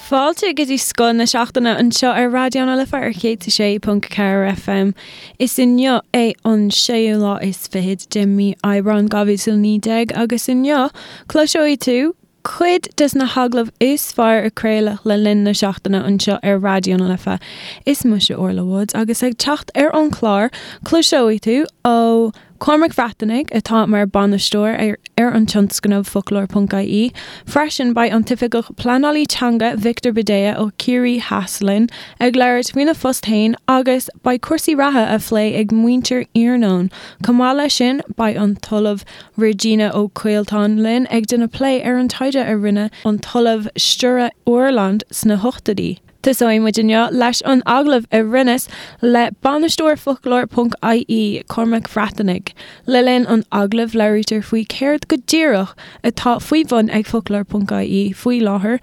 Fáilte go dtí Scoth na Seachtaine anseo ar Raidió na Life ar 106.4 FM. Is inniu é an séú lá is fichead de mí Aibreán 2019 agus inniu cloiseoidh tú cuid des na hagallaimh is fearr a craoladh le linn na seachtaine anseo ar Raidió na Life. Is mise Orla Woods agus ag teacht ar an chlár cloiseoidh tú ó Cormac Breatnaigh, atá mar bhainisteoir ar an tionscnamh Foclóir.ie. Freisin, beidh an tOifigeach Pleanálaí Teanga Victor Bhidea ó Chiarraí Theas linn ag labhairt faoina phost féin agus beidh cúrsaí reatha á phlé ag muintir Iarnóin. Chomh maith leis sin, beidh an tOllamh Regina Ó Coilteáin linn ag déanamh plé ar an taighde a rinne an tOllamh Sture Åhlund sna hochtóidí. Tosóidh muid inniu leis an agallamh a rinneas le bainisteoir Foclóir.ie, Cormac Breatnaigh. Le linn an agallaimh labhraítear faoi céard go díreach atá faoi bhun ag Foclóir.ie faoi láthair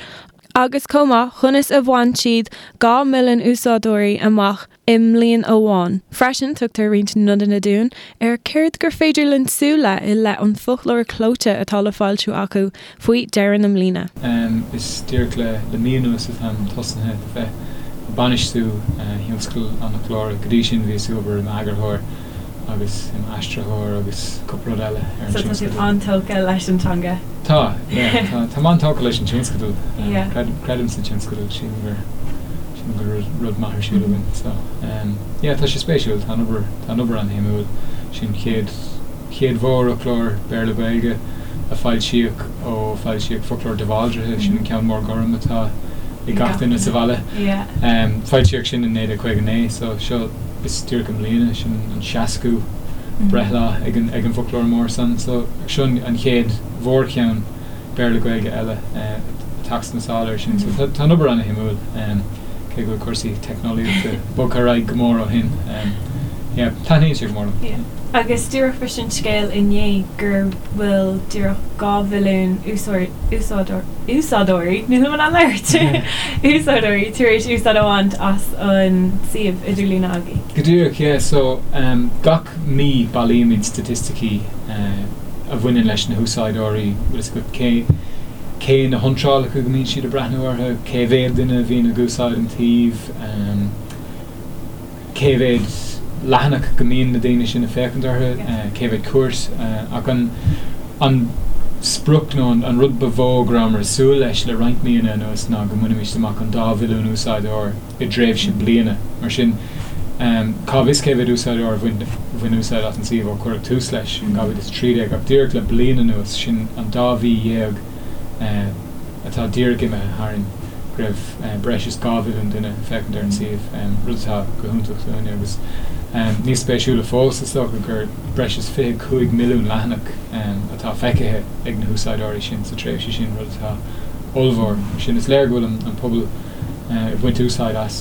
agus chomh maith conas a bhain siad 2 mhilliún úsáideoirí amach i mbliain amháin. Freisin, tugtar roinnt nodanna dúinn ar céard gur féidir linn súil le i leith an foclóir clóite atá le foilsiú acu faoi dheireadh na mbliana. Is díreach le le mí anuas atáim tosnaithe a bheith ag bainistiú thionscal an fhoclóra. Go dtí sin bhíos ag obair i m'eagarthóir agus i m'aistritheoir agus cúpla rud eile ar an So tá tú tionscadal. an-tógtha leis an teanga? Tá, yeah, tá, táim an-tógtha leis an tionscadal. Yeah. Creidim, creidim sa tionscadal, sílim gur, sílim go bhfuil rud, rud maith ar siúl againn. So, yeah, tá sé spéisiúil, tá an obair, tá an obair an-shuimiúil. Sin chéad, chéad mhórfhoclóir Béarla-Gaeilge a foilsíodh ó foilsíodh Foclóir de Bhaldraithe, sin an ceann mór gorm atá ag gach duine sa bhaile. Yeah. Foilsíodh sin in 1959, so seo, is díreach i mbliana, sin an seascú breithlá ag an ag an bhfoclóir mór san. So seo an chéad mhórcheann Béarla-Gaeilge eile ag teacht sna sála air sin. So tá tá an obair ana-shuimiúil, cé go bhfuil cúrsaí teicneolaíochta bogtha ar aghaidh go mór ó shin. Yeah, taitníonn sé go mór liom. Yeah. Agus díreach bhris an scéal inné gur bhfuil díreach 2 mhilliún úsáideoir, úsáideoirí, nílim in ann labhairt, úsáideoirí tar éis úsáid a bhaint as an suíomh idirlíne agaibh. Go díreach, yeah. So, gach mí bailímid staitisticí a bhaineann leis na húsáideoirí, bhfuil fhios agat, cé, cé na hiontrálacha go mbíonn siad ag breathnú orthu, cé mhéad duine a bhíonn ag úsáid an tsuímh, cé mhéad leathanach go mbíonn na daoine sin ag féachaint orthu, cé mhéad cuairt, ach an an sprioc nó an rud ba mhó go rabhamar ag súil leis le roinnt míonna anuas ná go mbainfimis amach an dá mhilliún úsáideoir i dtréimhse bliana. Mar sin, cá bhfios cé mhéad úsáideoir a bhain bhain úsáid as an suíomh ó cuireadh tús leis in 2013, ach díreach le bliain anuas, sin an dá mhí dhéag, atá díreach imithe tharainn, go raibh breis is 2 mhilliún duine ag féachaint ar an suíomh, rud atá go hiontach dúinne agus níos spéisiúla fós, is dócha, gur breis is 25 milliún leathanach atá feicthe ag na húsáideoirí sin sa tréimhse sin, rud atá ollmhór. Mar sin, is léir go bhfuil an pobal ag baint úsáid as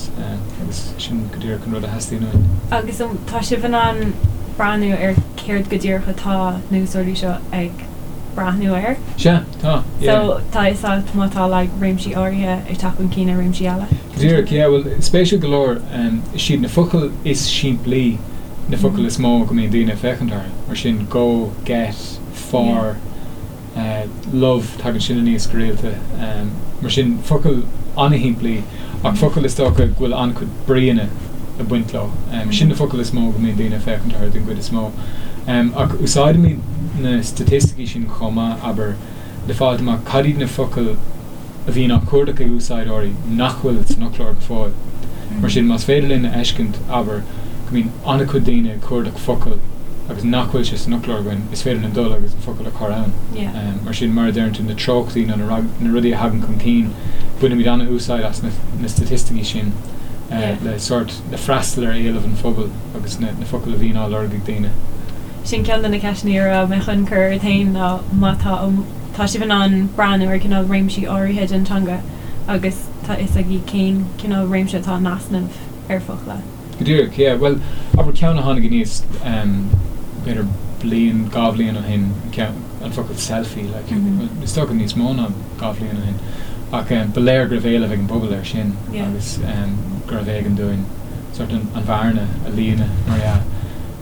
agus sin go díreach an rud a theastaíonn uainn. Agus tá sibh in ann breathnú ar céard go díreach atá na húsáideoirí seo ag breathnú air. Sea, tá, yeah. So, tá fhios agat má tá like réimsí áirithe ag teacht chun cinn ar réimsí eile? Go díreach, yeah, bhuel, spéisiúil go leor, is iad na focail is simplí na focail is mó go mbíonn daoine ag féachaint orthu, mar sin go, get, for, love, tagann sin aníos go rialta, mar sin focail an-shimplí ach focail is dócha go bhfuil an-chuid bríonna ag baint leo. Sin na focail is mó go mbíonn daoine ag féachaint orthu den gcuid is mó. Ach úsáidimid na staitisticí sin chomh maith, abair, le fáilt amach cad iad na focail a bhíonn á cuardach ag úsáideoirí nach bhfuil san fhoclóir go fóill. Mar sin, más féidir linn a fheiscint, abair, go mbíonn an-chuid daoine ag cuardach focal agus nach bhfuil sé san fhoclóir againn, is féidir linn dul agus an focal a chur ann. Mar sin, mar a deireann tú, na treochtaí nó na rudaí a thagann chun cinn, bainimid an-úsáid as na staitisticí sin le sórt, le freastal ar éileamh an phobail agus na focail a bhíonn á lorg ag daoine. Sin ceann de na ceisteanna a raibh mé chun cur ort féin ná má tá tá sibh in ann breathnú ar cineál réimsí áirithe den teanga agus tá fhios agaibh cén cineál réimse atá in easnamh ar focla. Go díreach, yeah. Bhuel, abair ceann a tháinig aníos b'fhéidir bliain, dhá bhliain ó shin, an focal selfie, like, is dócha níos mó ná dhá bhliain ó shin, ach ba léir go raibh éileamh ag an bpobal air sin agus gurbh éigean dúinn sort an bhearna a líonadh, mar dhea.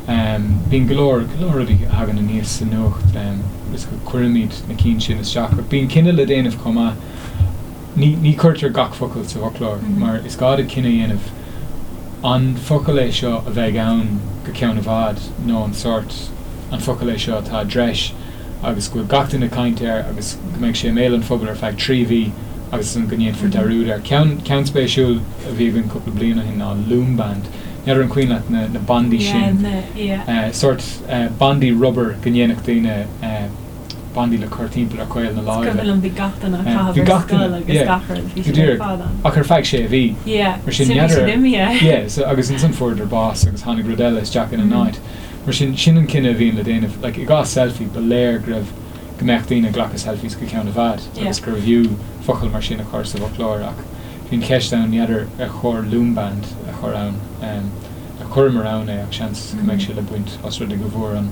Bíonn go leor, go leor rudaí a thagann aníos sa nuacht agus go cuirimid na cinn sin isteach ach bíonn cinneadh le déanamh chomh maith. Ní ní chuirtear gach focal sa bhfoclóir mar is gá duit cinneadh a dhéanamh an focal é seo a bheidh ann go ceann i bhfad nó an sórt an focal é seo atá i dtreis agus go bhfuil gach duine ag caint air agus go mbeidh sé i mbéal an phobail ar feadh 3 mhí agus ansan go ndéanfar dearúd air. Ceann ceann spéisiúil a bhí againn cúpla bliain ó shin ná loom band. N'fheadar an cuimhin leat na na bandaí sin. Sórt bandaí rubair go ndéanfadh daoine bandaí le cur timpeall ar chaol na láimhe. Is cuimhin liom bhí gach duine á chaitheamh ar scoil agus gach rud, bhí siad ar fad ann. Ach ar feadh sé mhí. Mar sin n'fheadar. Yeah, so agus ansan fuaireadar bás agus tháinig rud eile isteach ina n-áit. Mar sin, sin an cinneadh a bhíonn le déanamh. Like, i gcás selfie, ba léir go raibh, go mbeadh daoine ag glacadh selfies go ceann i bhfad agus gurbh fhiú focal mar sin a chur sa bhfoclóir ach bhí an cheist ann, n'fheadar ar chóir loom band a chur ann. Chuireamar ann é ach seans go mbeidh sé le baint os rud é go bhfuair an,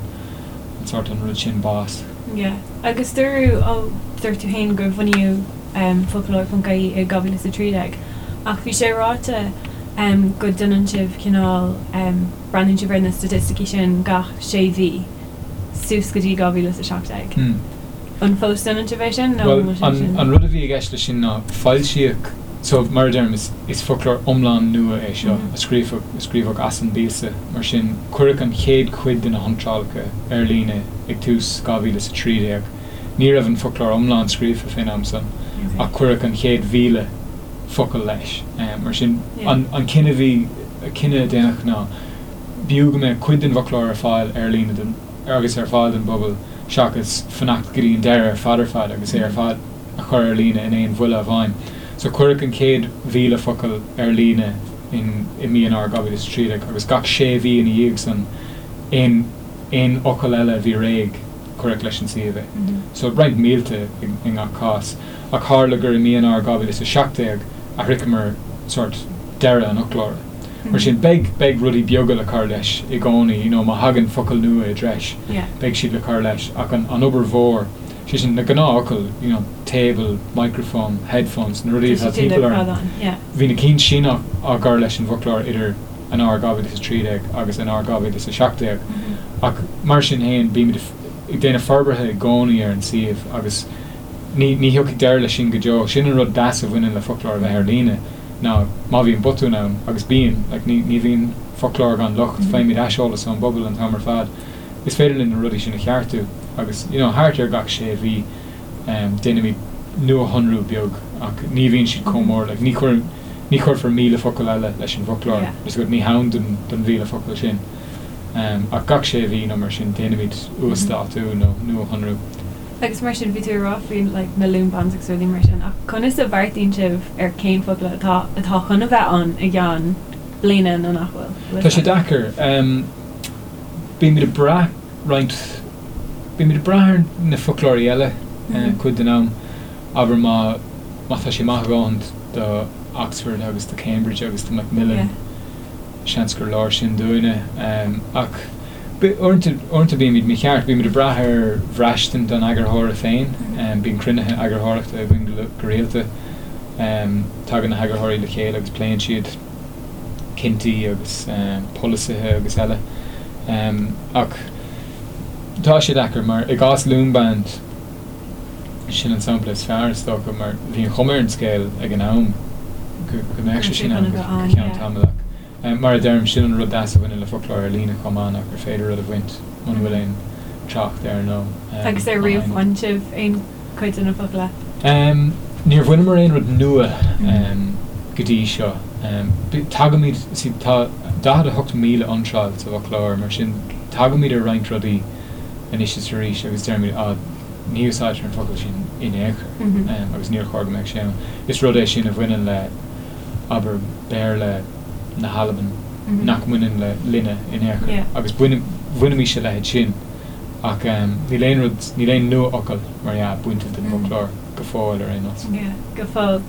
an sórt, an rud sin bás. Yeah. Agus dúradh, ó, dúirt tú féin gur bunaíodh foclóir.ie i 2013 ach bhí sé ráite go ndéanann sibh cineál, breathnaíonn sibh ar na staitisticí sin gach sé mhí suas go dtí 2017. An fós déanann sibh é sin nó an bhfuil sé sin? Bhuel, an rud a bhí i gceist leis sin ná foilsíodh, so mar a deirim, is is foclóir iomlán nua é seo a scríofadh, a scríobhadh as an bpíosa, mar sin cuireadh an chéad chuid de na hiontrálacha ar líne ag tús 2013. Ní raibh an foclóir iomlán scríofa fén am san ach cuireadh an chéad 1,000 focal leis. Mar sin an cinneadh a bhí, cinneadh a déanadh ná b'fhiú go mbeadh cuid den bhfoclóir ar fáil ar líne don, agus ar fáil don bpobal seachas fanacht go dtí an deireadh ar fad ar fad agus é ar fad a chur ar líne in aon bhuille amháin. So cuireadh an chéad 1,000 focal ar líne in i mí Eanáir 2013 agus gach sé mhí ina dhiaidh san aon aon fhocal eile a bhí réidh cuireadh leis an suíomh é. So roinnt mílte i i ngach cás. Ach tharla gur i mí Eanáir 2017 a shroicheamar sórt deireadh an fhoclóra. Mar sin, beidh, beidh rudaí beaga le cur leis i gcónaí, you know, má thagann focail nua i dtreis, beidh siad le cur leis, ach an, an obair mhór, sé sin, na gnáthfhocail, you know, table, microphone, headphones, na rudaí atá timpeall orainn, bhí na cinn sin á, á gcur leis an bhfoclóir idir Eanáir 2013 agus Eanáir 2017. Ach mar sin féin, bímid ag déanamh forbartha i gcónaí ar an suíomh agus ní, ní thiocfaidh deireadh leis sin go deo. Sin an rud deas a bhaineann le foclóir a bheith ar líne. ná má bhíonn botún ann, agus bíonn, like ní, ní bhíonn foclóir gan locht, faighimid aiseolas ón bpobal an t-am ar fad, is féidir linn na rudaí sin a cheartú agus, you know, thart ar gach sé mhí em déanaimid nuashonrú beag ach ní bhíonn siad chomh mór, like ní chuir, ní chuirfear 1,000 focal eile leis an bhfoclóir, yeah, is ní hann don, don 1,000 focal sin. Em ach gach sé mhí nó mar sin déanaimid uasdátú nó nuashonrú. Agus mar sin, bhí tú ag rá faoi like na loom bands agus rudaí mar sin, ach conas a bheartaíonn sibh ar cén focal atá atá chun a bheith ann i gceann bliana nó nach bhfuil? Bhfuil Tá sé deacair. Um, bímid ag brath roinnt, bímid ag brath ar na foclóirí eile mm -hmm. cuid den am. Abair má má tá sé maith a dhóthain do Oxford agus do Cambridge agus do Macmillan, yeah. Seans gur leor sin dúinne. Ach uaireanta bímid mícheart, bímid ag brath ar bhraistint an eagarthóra féin. Bíonn cruinnithe eagarthóireachta againn go rialta. Tagann na heagarthóirí le chéile agus pléann siad cinntí agus polasaithe agus eile. Ach tá sé deacair mar i gcás Loom Band, Sin an sampla is fearr, is dócha, mar bhí an chuma ar an scéal ag an am go mbeadh sé sin ann go ceann tamaill ach mar a deirim, sin an rud deas a bhaineann le foclóir ar líne chomh maith ná gur féidir rud a bhaint muna bhfuil aon trácht air nó Agus ar riamh bhain sibh aon chuid de na focla? Níor bhaineamar aon rud nua go dtí seo. Tagaimid, see, tá 48,000 iontráil sa bhfoclóir, mar sin tagaimid ar roinnt rudaí anois is arís agus deirimid, ah, ní úsáidtear an focal sin in aon chor agus níor chóir go mbeadh sé ann. Is rud é sin a bhaineann le, abair, Béarla na hAlban nach mbaineann le linne in aon chor agus bhainimis a leithéid sin ach níl aon rud, níl aon nua-fhocal, mar dhea, bainte den bhfoclóir go fóill ar aon nós. Yeah, go fóill.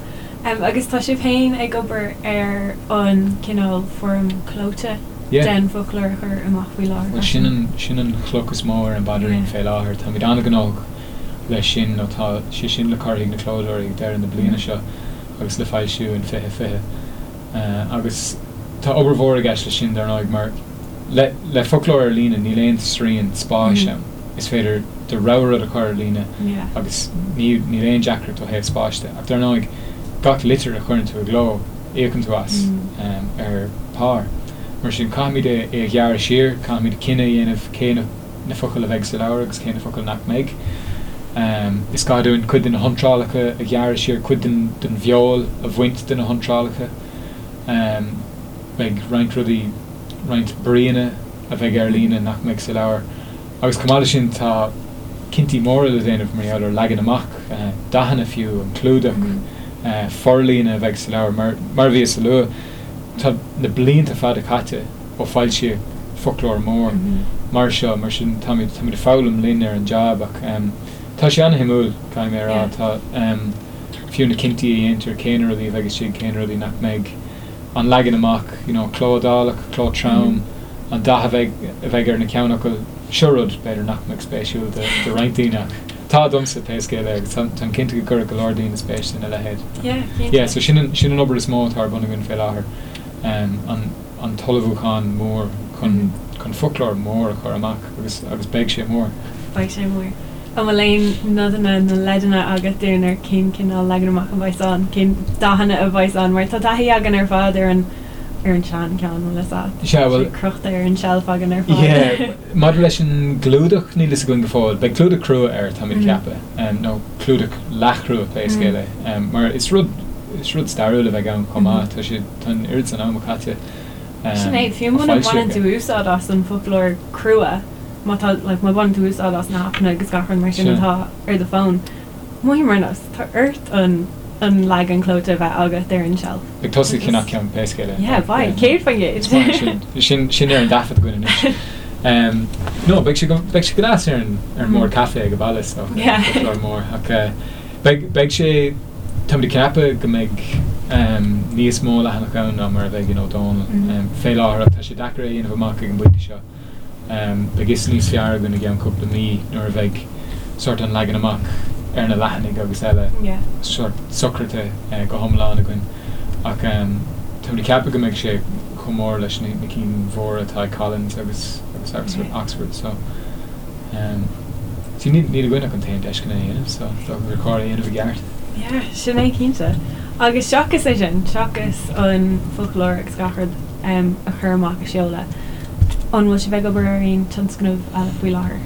Agus tá sibh féin ag obair ar an cineál foirm clóite den bhfoclóir a chur amach faoi láthair Bhuel, sin an, sin an chloch is mó ar an bpaidrín fé láthair. Táimid an-ghnóthach leis sin nó tá sé sin le cur chuig na clódóirí ag deireadh na bliana seo agus le foilsiú in 2020. Agus tá obair mhór i gceist leis sin, dar ndóigh, mar le, le foclóir ar líne níl aon srian spáis ann. Is féidir do rogha rud a chur ar líne agus ní, níl aon deacracht ó thaobh spáis de. Ach dar ndóigh. Gach litir a chuireann tú i gcló, íocann tú as ar pár. Mar sin, caithfimid é a ghearradh siar, caithfimid cinneadh a dhéanamh cé na focail a bheidh sa leabhar agus cé na focail nach mbeidh. Is gá dúinn cuid de na hiontrálacha a ghearradh siar, cuid den bhfeoil a bhaint de na hiontrálacha. Beidh roinnt rudaí, roinnt bríonna a bheidh ar líne nach mbeidh sa leabhar. Agus chomh maith leis sin tá cinntí móra le déanamh mar gheall ar leagan amach, dathanna fiú, an clúdach, forlíonadh a bheidh sa leabhar. Mar mar a bhíos a lua, tá na blianta fada caite ó foilsíodh foclóir mór mar seo, mar sin táimid táimid ag foghlaim linn ar an jab ach tá sé ana-shuimiúil, caithfidh mé a rá. Tá fiú na cinntí a dhéantar, cé na rudaí a bheidh istigh, cé na rudaí nach mbeidh. an leagan amach, you know, cló iodálach, cló trom, an dath a bheidh, a bheidh ar na ceannfhocail, seo rud, b'fhéidir, nach mbeadh spéisiúil do, do roinnt daoine ach tá domsa, pé scéal é, agus táim, táim cinnte go gcuirfeadh go leor daoine spéis ina leithéid. Yeah, cinnte. Yeah, so sin an, sin an obair is mó atá ar bun againn fé láthair, um, an, an t-ullmhúchán mór chun, chun foclóir mór a chur amach agus, agus beidh sé mór. Beidh sé mór. An bhfuil aon nodanna nó leideanna agat dúinn ar cén cineál leagan amach a bheas ann, cén dathanna a bheas ann? Mar tá taithí againn ar fad ar an ar an sean ceann, bhfuil fhios a't. Sea, bhuel. Tá sé crochta ar an tseilf againn ar fad. Yeah, maidir leis an gclúdach, níl fhios againn go fóill. Beidh clúdach crua air, táimid ag ceapadh, nó clúdach leathchrua pé scéal é. Mar is rud, is rud stairiúil a bheidh ann chomh maith. Tá sé, tá an oiread san ama caite Sin é, fiú muna mbaineann tú úsáid as an bhfoclóir crua, má tá, like, má bhaineann tú úsáid as na haipeanna agus gach rud mar sin atá ar do fón, mothaím ar nós, tá ort an, an leagan clóite a bheith agat ar an tseilf. Ag tosaí ag ceannach ceann pé scéal é. Yeah, beidh, 100%. Is maith sin, sin, sin ar an dtaifead againn anois. Um, no, beidh sé go, beidh sé go deas ar an, ar an mbord caife ag an baile, so, Yeah. foclóir mór, ach eh, beidh, beidh sé, táimid ag ceapadh go mbeidh um, níos mó leathanach ann ná mar a bheidh in Ó Dónaill. Um, fé láthair, ach tá sé deacair é a dhéanamh amach ag an bpointe seo. Beidh fhios níos fearr againn i gceann cúpla mí nuair a bheidh sórt an leagan amach ar na leathanaigh agus eile sórt socraithe go hiomlán againn. Ach táimid ag ceapadh go mbeidh sé chomh mór leis na cinn mhóra atá ag Collins agus agus Oxford so see níl níl againn ach an t-aon deis chun é a dhéanamh so is dócha gur chóir é a dhéanamh i gceart. Yeah, sin é cinnte. Agus seachas é sin, seachas an foclóir agus gach rud, a chur amach a sheoladh. An bhfuil sibh ag obair ar aon tionscnamh eile faoi láthair?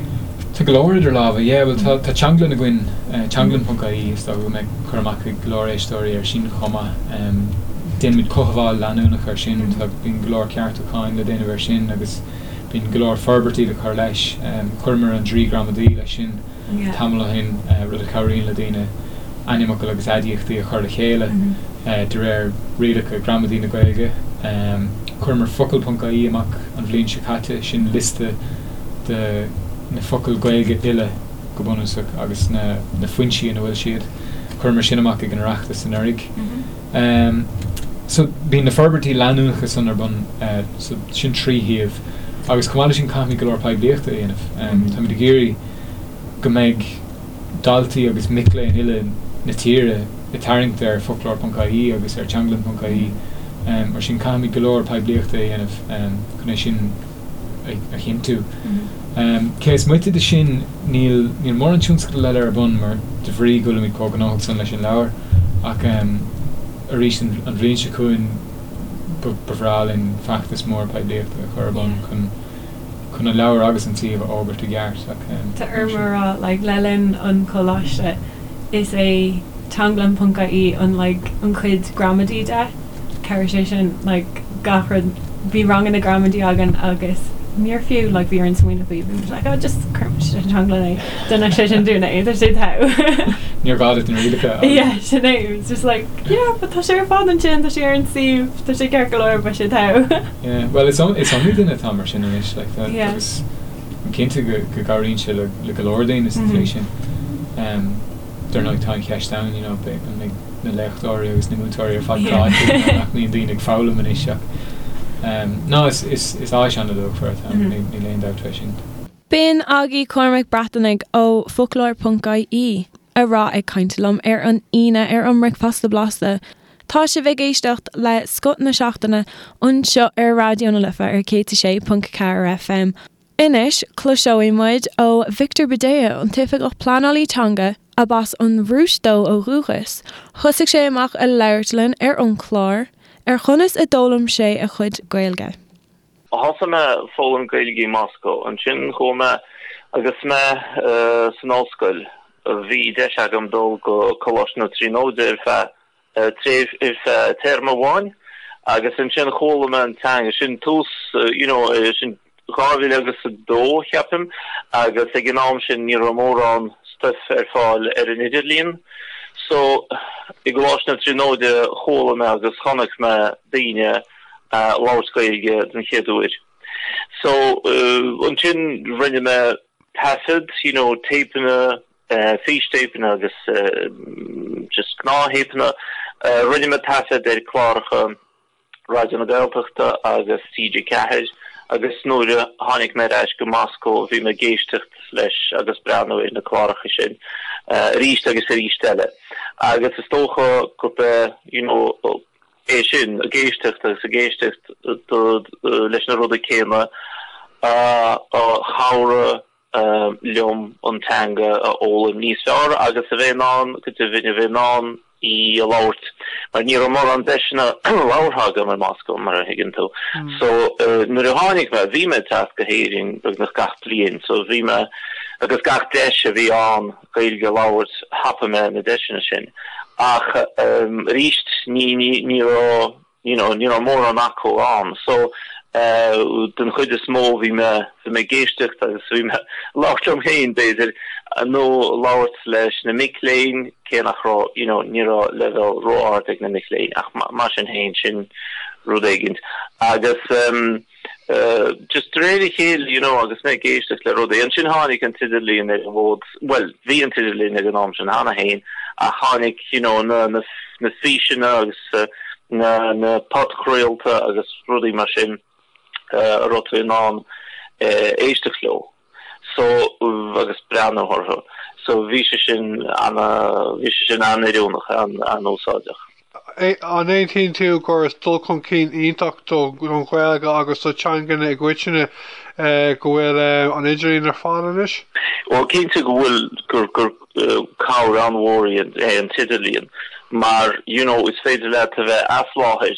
Tá go leor idir lámha, yeah, bhuel tá tá teanglann againn, teanglann ponc ie, is dócha go mbeidh cur amach ag go leor éisteoirí air sin chomh maith. Déanaimid cothabháil leanúnach air sin, tá bíonn go leor ceartúcháin le déanamh air sin agus bíonn go leor forbairtí le cur leis. Chuireamar an Draoi Gramadaí leis sin. tamall ó shin, rud a chabhraíonn le daoine ainmfhocail agus aidiachtaí a chur le chéile de réir rialacha gramadaí na Gaeilge. Chuireamar focal ponc ie amach an bhliain seo caite, sin liosta de na focail Ghaeilge uile go bunúsach agus na foinsí ina bhfuil siad. Chuireamar sin amach ag an Oireachtas anuraidh. So bíonn na forbairtí leanúnacha san ar bun, so sin trí shuíomh. Agus chomh maith leis sin caithfimid go leor poiblíochta a dhéanamh. Táimid ag iarraidh go mbeidh daltaí agus mic léinn uile na tíre ag tarraingt ar foclóir ponc ie agus ar teanglann ponc ie. Mar sin caithfimid go leor poiblíochta a dhéanamh chun é sin a chinntiú. Cé is moite de sin níl níl mórán tionscadal eile ar bun mar de bhrí go bhfuilimid chomh gnóthach san leis an leabhar ach arís an bhliain seo chugainn ba bhreá linn feachtas mór poiblíochta a chur ar bun chun chun an leabhar agus an suíomh a fhógairt i gceart ach Tá orm a rá, like, le linn an choláiste, is é teanglann ponc ie an, like, an chuid gramadaí de, chabhraigh sé sin, like, gach rud, bhí ranganna gramadaí againn agus níor fiú, like, bhí orainn smaoineamh faoi, bhí muid like, oh, just cuirfidh muid ar teanglann é, déanfaidh sé sin dúinn é, tá sé togha. Níor ghá duit na rialacha a. Yeah, sin é, it was just like, yeah, but tá sé ar fad ansin, tá sé ar an suíomh, tá sé ceart go leor, beidh sé togha. Yeah, bhuel is is iomaí duine atá mar sin anois, like, tá, yeah. agus I'm cinnte go go gcabhraíonn sé le le go leor daoine sa tslí sin. Um, dar ndóigh tá an cheist ann, you know, beidh an mbeidh na léachtóirí agus na múinteoirí ar fad cráite nach mbíonn daoine ag foghlaim anois ach um, no, is is is áis an-luachmhar atá ann, níl níl aon dabht fé sin. B'in agaibh Cormac Breatnaigh ó Foclóir.ie a raibh ag caint liom ar an Aoine ar an mBricfeasta Blasta. Tá sibh ag éisteacht le Scoth na Seachtaine anseo ar Raidió na Life ar 106.4 FM. Anois, cloisfidh muid ó Victor Budejo, an tOifigeach Pleanálaí Teanga. Ab as an Rúis dó ó dhúchas, thosaigh sé amach ag labhairt linn ar an chlár ar chonas a d'fhoghlaim sé a chuid Gaeilge. Thosaigh mé ag foghlaim Gaeilge i Moscó. Ansin chuaigh mé agus mé san ollscoil. Bhí deis agam dul go Coláiste na Tríonóide ar feadh tréimh ar feadh téarma amháin agus ansin chuala mé an teanga. Sin tús you know sin 2000 agus 2 cheapaim agus ag an am sin ní raibh mórán stuif ar fáil ar an idirlíon. So i gColáiste na Tríonóide chuala mé agus chonaic mé daoine a' labhairt Gaeilge den chéad uair. So ansin rinne mé taifead, you know téipeanna, fístéipeanna agus just gnáth-théipeanna. Rinne mé taifead ar cláracha Raidió na Gaeltachta agus TG4 agus nuair a tháinig mé ar ais go Moscó bhí mé ag éisteacht leis agus breathnú ar na cláracha sin arís agus arís eile. Agus is dócha gurb é you know é sin, ag éisteacht agus ag éisteacht leis na rudaí céanna a chabhraigh liom an teanga a fhoghlaim níos fearr agus a bheith in ann, go deimhin, a bheith in ann í a labhairt, mar ní raibh mórán deiseanna labhartha agam i Moscó, mar a thuigeann tú. So, nuair a tháinig mé, bhí mé ag teacht go hÉirinn beagnach gach bliain, so bhí mé, agus gach deis a bhí ann Gaeilge a labhairt, thapaigh mé na deiseanna sin. Ach arís, ní, ní, ní raibh, you know, ní raibh mórán acu ann. So, den chuid is mó bhí mé, bhí mé ag éisteacht agus bhí mé ag labhairt liom féin, b'fhéidir, nó labhairt leis na mic léinn, cé nach raibh, you know, ní raibh leibhéal ró-ard ag na mic léinn, ach mar sin féin, sin rud éigin. Agus just de réir a chéile, you know, agus mé ag éisteacht le rudaí, ansin tháinig an t-idirlíon ar an bhfód, bhuel, bhí an t-idirlíon ag an am sin cheana féin, ach tháinig, you know, na, na, na físeanna agus na, na podchraolta agus rudaí mar sin a raibh tú in ann éisteacht leo. So, agus breathnú orthu. So bhí sé sin ana, bhí sé sin an-oiriúnach, an-úsáideach. An aontaíonn tú gur is dul chun cinn iontach don Ghaeilge agus do theangacha i gcoitinne go bhfuil an idirlíon ar fáil anois? Bhuel, cinnte go bhfuil, gur, gur cabhair an-mhór é an t-idirlíon mar you know is féidir leat a bheith as láthair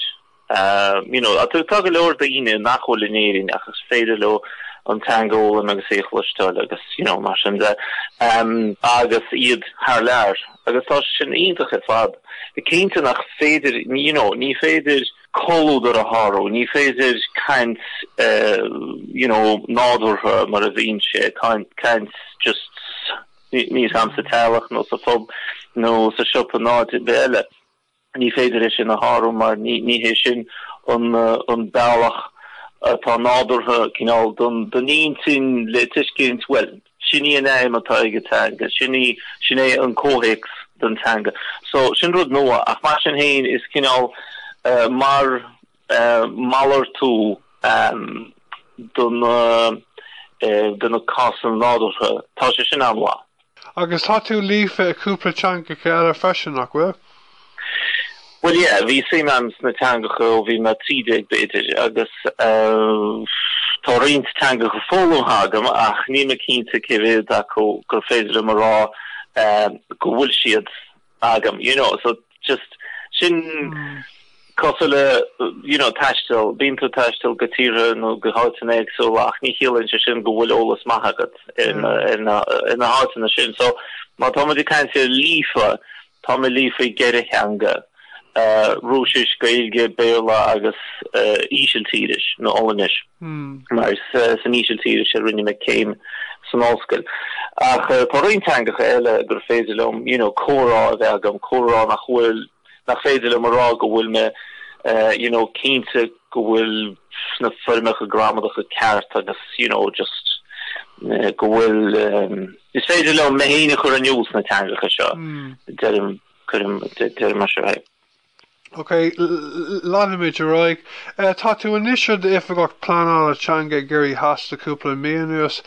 You know, tá go leor daoine nach bhfuil in Éirinn ach is féidir leo an teanga a fhoghlaim agus é a chloisteáil agus, you know, mar sin de, agus iad thar lear. Agus tá sé sin iontach ar fad. Cinnte nach féidir, you know, ní féidir comhluadar a shárú, ní féidir caint, you know, nádúrtha mar a bhíonn sé, caint just, níl a fhios agam, sa teaghlach nó sa phub nó sa siopa nó áit ar bith eile. Ní féidir é sin a shárú mar ní hé sin an bealach atá nádúrtha cineál don intinn le tuiscint, bhuel, sin í an aidhm atá ag an teanga, sin í, sin é an comhthéacs don teanga. So, sin rud nua ach mar sin féin is cineál mar malartú do na do na cásanna nádúrtha, tá sé sin an-mhaith. Agus tá tú líofa i cúpla teangacha eile freisin, nach bhfuil? Bhuel, yeah, bhí suim agam sna teangacha ó bhí mé 13 b'fhéidir agus tá roinnt teangacha foghlamtha agam ach níl mé cinnte cé mhéad acu gur féidir liom a rá go bhfuil siad agam, you know, so just sin cosúil le, you know, taisteal, bíonn tú ag taisteal go tíortha nó go háiteanna éagsúla ach ní chiallaíonn sé sin go bhfuil eolas maith agat ar na, ar na, ar na háiteanna sin. So má tá muid ag caint ar líofa, tá mé líofa i gceithre theanga, Rúisis, Gaeilge, Béarla agus Ísiltíris nó Ollainnis. Mar is san Ísiltíris a rinne mé céim san ollscoil. Ach tá roinnt teangacha eile gur féidir liom you know comhrá a bheith agam, comhrá nach bhfuil, nach féidir liom a rá go bhfuil mé you know cinnte go bhfuil na foirmeacha gramadacha ceart agus you know just go bhfuil, is féidir liom mé féin a chur in iúl sna teangacha seo, deirim, cuirim, deirim mar seo é. Ok, leanfaimid ar aghaidh. Tá tú anois i d'Oifigeach Pleanála Teanga i gCiarraí Theas le cúpla mí anuas.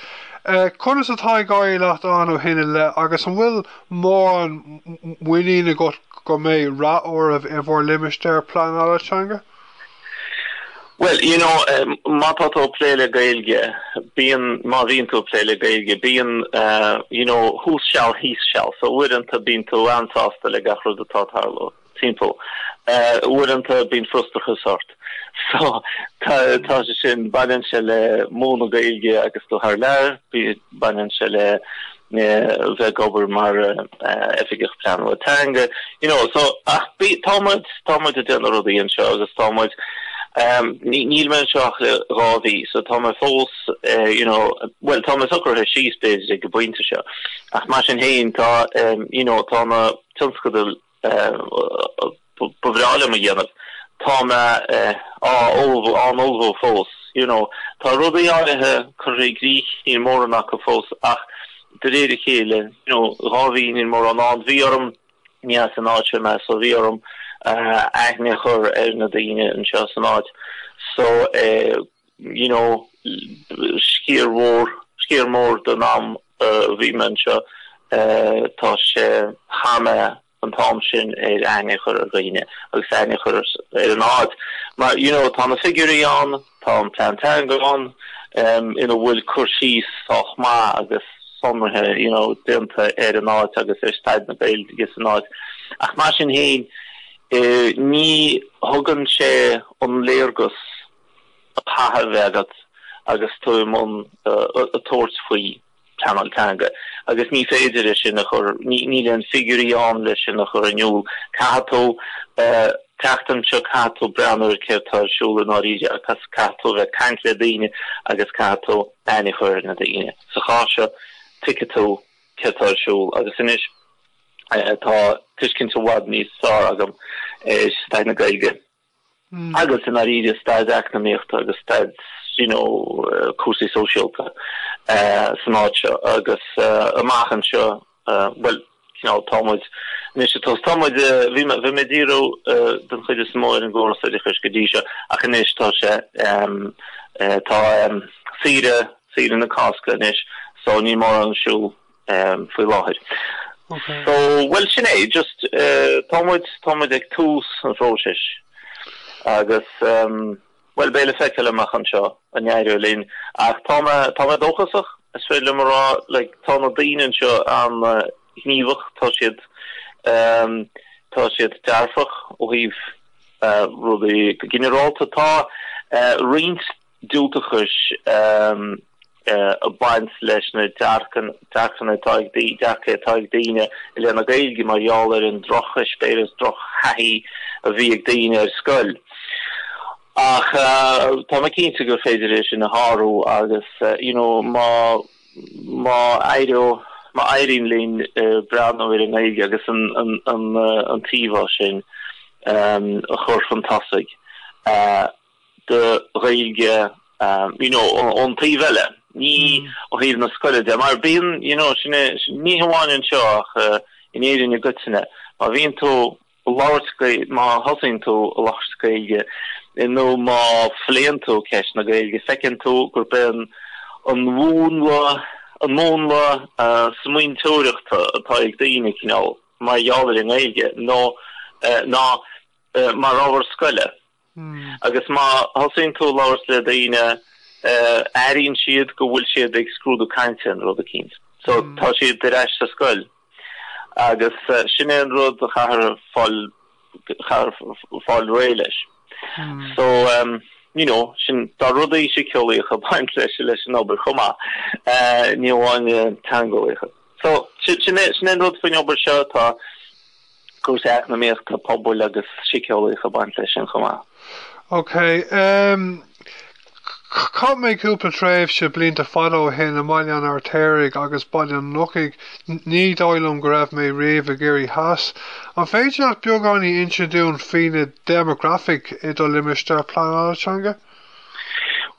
Conas atá ag éirí leat ann ó shin i leith agus an bhfuil mórán muinín agat go mbeidh rath oraibh i bhur limistéar pleanála teanga? Bhuel, you know, má tá tú ag plé le Gaeilge, bíonn, má bhíonn tú ag plé le Gaeilge, bíonn, you know, thuas seal, thíos seal. So uaireanta bíonn tú an-sásta le gach rud atá ag tarlú timpeall. Uaireanta bíonn frustrachas ort. So tá, tá sé sin, baineann sé le múineadh Gaeilge agus tú thar lear, baineann sé le bheith ag obair mar oifigeach pleanála teanga, you know, so ach bí, tá muid, tá muid ag déanamh rudaí anseo agus tá muid, níl mé anseo ach le 2 mhí so tá mé fós, you know, bhuel tá mé socraithe síos b'fhéidir ag an bpointe seo ach mar sin féin tá, you know, tá na tionscadail ba bhreá liom a dhéanamh. Tá mé á ullmhú, á n-ullmhú fós, you know. Tá rudaí áirithe curtha i gcrích, níl mórán acu fós ach de réir a chéile, you know, 2 mhí níl mórán ann. Bhí orm, ní as an áit seo mé so bhí orm aithne a chur ar na daoine anseo san áit so you know, sciar mhór, sciar mór den am a bhí mé anseo, tá sé, chaith mé an t-am sin ar aithne a chur ar dhaoine agus aithne a chur ar an áit. Mar, you know, tá na figiúirí ann, tá an plean teanga ann, ina bhfuil cur síos sách maith agus sonraithe, you know, déanta ar an áit agus ar staid na Gaeilge san áit. Ach mar sin féin, ní thugann sé an léargas a chaithfidh a bheith agat agus tú i mbun ag tabhairt faoi pleanáil teanga agus ní féidir é sin a chur, níl aon figiúirí ann leis sin a chur in iúl. Caithfidh tú teacht anseo, caithfidh tú breathnú ar céard atá ar siúl i ndáiríre agus caithfidh tú a bheith ag caint le daoine agus caithfidh tú aithne a chur ar na daoine. Sa chás seo, tuigfidh tú céard atá ar siúl agus anois tá tuiscint i bhfad níos fearr agam ar staid na Gaeilge. Agus i ndáiríre staid eacnamaíochta agus staid you know cúrsaí sóisialta san áit seo agus amach anseo bhuel cineál tá muid anois ag tá muid bhí mé bhí mé ag díriú den chuid is mó ar an gcóras oideachais go dtí seo ach anois tá sé tá saoire saoire na Cásca anois so níl mórán ar siúl faoi láthair. So, bhuel, sin é, just tá muid, tá muid ag tús an phróisis agus, bhuel, beidh le feiceáil amach anseo an éireoidh linn ach tá mé, tá mé dóchasach, is féidir liom a rá, like, tá na daoine anseo an-ghníomhach, tá siad, tá siad dearfach ó thaobh rudaí go ginearálta. Tá roinnt diúltachais ag baint leis na dearcanna atá ag dearcaí atá ag daoine i leith na Gaeilge mar gheall ar an drocheispéireas, drochthaithí a bhí ag daoine ar scoil. Ach tá mé cinnte gur féidir é sin a shárú agus you know má má éireodh má éiríonn linn breathnú ar an nGaeilge agus an an an t-íomhá sin a chur chun tosaigh. de Ghaeilge you know ón taobh eile, ní ó thaobh na scoile de, mar bíonn you know sin é, ní hamháin anseo ach in Éirinn i gcoitinne, má bhíonn tú ag labhairt Gaeilge, má thosaíonn tú ag labhairt Gaeilge nó má phléann tú ceist na Gaeilge, feiceann tú gurb é an an mhúnla an múnla smaointeoireachta atá ag daoine cineál mar gheall ar an nGaeilge nó ná mar ábhar scoile. Agus má thosaíonn tú ag labhairt le daoine, airíonn siad go bhfuil siad ag scrúdú cainte nó rud eicínt. So tá siad ar ais sa scoil. Agus sin é an rud a chaithfear fáil, chaithfear fáil réidh leis. So, you know, sin, tá rudaí síceolaíocha ag baint leis, leis an obair chomh maith, ní amháin teangeolaíocha. So, sin é, sin é an rud faoin obair seo, tá, cúrsaí eacnamaíochta, pobail agus síceolaíocha ag baint leis sin chomh maith. Ok. Em, chaith mé cúpla tréimhse blianta fada ó shin i mBaile an Fheirtéaraigh agus Baile an Lochaigh. Ní dóigh liom go raibh mé riamh i gCiarraí Theas. An féidir leat beagáinín inse dúinn faoi na déimeagrafaic i do limistéar pleanála teanga?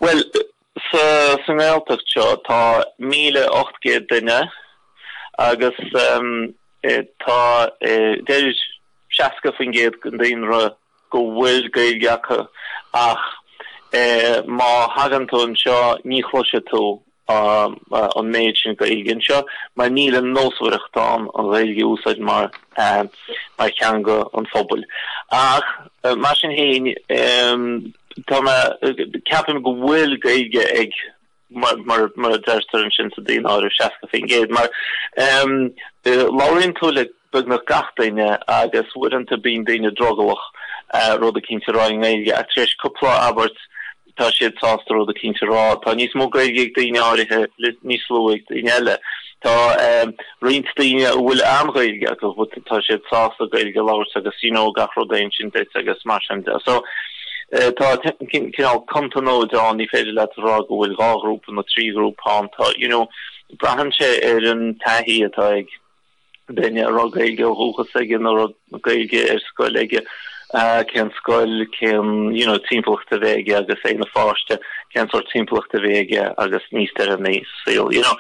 Bhuel, sa, sa nGaeltacht seo tá 1,800 duine agus, em, Tá, deir 60% den daonra go bhfuil Gaeilge acu ach má thagann tú anseo ní chloisfidh tú an méid sin Gaeilge anseo mar níl an nósmhaireacht ann an Ghaeilge a úsáid mar mar theanga an phobail. Ach mar sin féin. Tá mé, ceapaim go bhfuil Gaeilge ag, mar mar a deirtear ansin sa daonáireamh, 60%, mar labhraíonn tú le beagnach gach duine agus uaireanta bíonn daoine drogallach rud eicínt a rá i nGaeilge ach tar éis cúpla abairt tá siad sásta rud eicínt a rá. Tá níos mó Gaeilge ag daoine áirithe, níos lú ag daoine eile. Tá roinnt daoine a bhfuil an-Ghaeilge acu but tá siad sásta Gaeilge a labhairt agus you know gach rud a insint duit agus mar sin de. So tá cineál contanóid ann, ní féidir leat a rá go bhfuil dhá ghrúpa nó trí ghrúpa ann. Tá you know braitheann sé ar an taithí atá ag duine a raibh Gaeilge ó dhúchas aige nó a raibh Gaeilge ar scoil aige, cén scoil, cén you know timpeallacht a bhí aige agus é ina pháiste, cén sórt timpeallacht a bhí aige agus níos deireanaí sa saol, you know.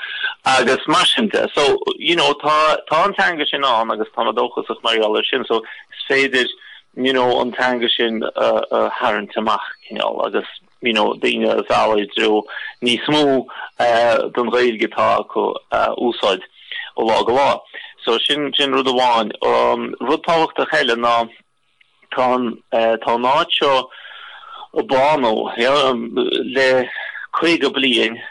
Agus mar sin de. So, you know, tá tá an teanga sin ann agus tá mé dóchasach mar gheall air sin, so is féidir, you know, an teanga sin a a tharraingt amach cineál agus you know, daoine a mhealladh i dtreo níos mó den Ghaeilge atá acu a úsáid ó lá go lá. So sin, sin rud amháin. Rud tábhachtach eile ná tá an, tá an áit seo ag bánú, you know, le 50 bliain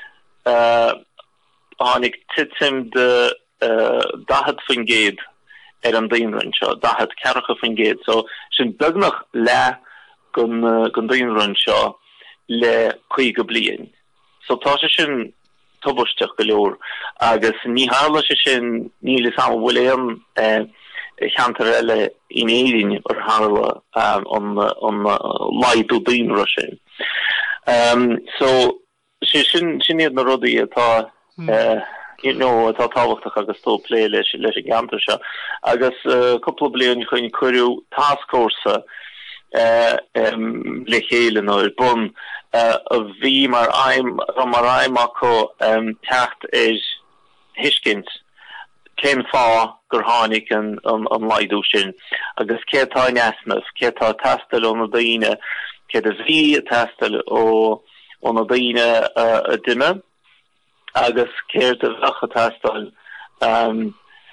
tháinig titim de 40% ar an daonra anseo, 40, ceathracha faoin gcéad, so sin beagnach leath den daonra anseo le 50 bliain. So tá sé sin tubaisteach go leor agus ní tharla sé sin, níl fhios a'm an bhfuil aon cheantar eile in Éirinn ar tharla an laghdú daonra sin. So Sé sin, sin iad na rudaí atá, you know, atá tábhachtach agus tú ag plé leis, leis an gceantar seo. Agus cúpla bliain ó shin cuireadh tascfhórsa le chéile nó ar bun a bhí mar aidhm, a raibh mar aidhm acu teacht ar thuiscint cén fáth gur tháinig an laghdú sin agus céard atá in easnamh, céard atá ag teastáil ó na daoine, céard a bhí ag teastáil ó na daoine a d'imigh agus céard a bheadh ag teastáil,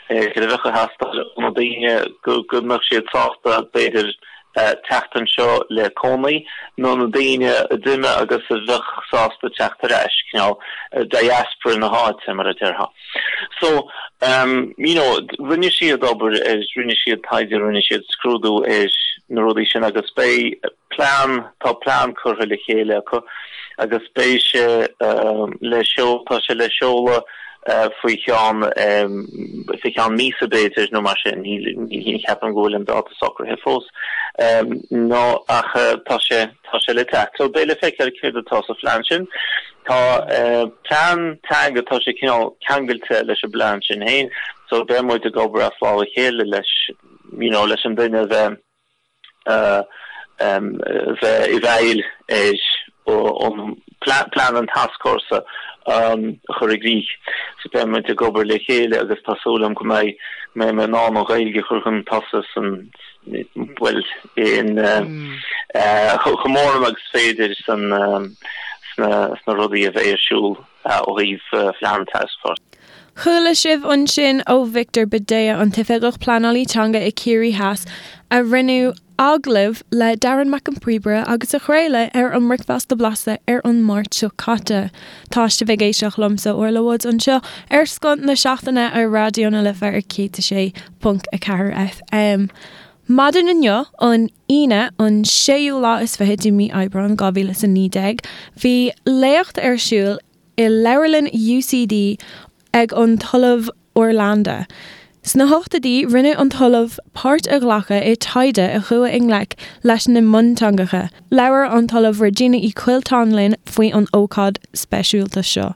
céard a bheadh ag teastáil ó na daoine go mbeadh siad sásta, b'fhéidir, teacht anseo le cónaí, nó na daoine a d'imigh agus a bheadh sásta teacht ar ais, cineál diaspora na háite, mar a déarfá. So, you know, rinne siad obair ar, rinne siad taighde, rinne siad scrúdú ar na rudaí sin agus beidh plean, tá plean curtha le chéile acu agus beidh sé le seol, tá sé le seoladh faoi cheann, faoi cheann míosa b'fhéidir nó mar sin, ní cheapaim go bhfuil an dáta socraithe fós nó ach tá sé, tá sé le teacht. So beidh le feiceáil céard atá sa phlean sin. Tá plean teanga, tá sé cineál ceangailte leis an bplean sin féin, so beidh muid ag obair as lámh a chéile leis, you know, leis an duine a bheith, bheith i bhfeighil ar an plean an tascfhórsa a chur i gcrích. So beidh muid ag obair le chéile agus tá súil agam go mbeidh mé in ann an Ghaeilge a chur chun tosaigh san, bhuel, in chomh mór agus is féidir san sna rudaí a bheidh ar siúl ó thaobh phlean an tascfhórsa. Chuala sibh ansin ó Victor Bhidea, an tOifigeach Pleanálaí Teanga i Ciarraí Theas, a rinne agallamh le Darren Mac an Phríomhaire agus a craoladh ar an mBricfeasta Blasta ar an Máirt seo caite. Tá sibh ag éisteacht liomsa, Orla Woods, anseo ar Scoth na Seachtaine ar Raidió na Life ar 106.4 FM. Maidin inniu, an Aoine, an séú lá is fiche de mí Aibreán 2019, bhí léacht ar siúl i Leabharlann UCD ag an tOllamh Orlando. Sna hochtóidí, rinne an tOllamh páirt a ghlacadh i taighde a chuaigh i ngleic leis na mionteangacha. Labhair an tOllamh Regina Uí Choilteáin linn faoi an ócáid speisialta seo.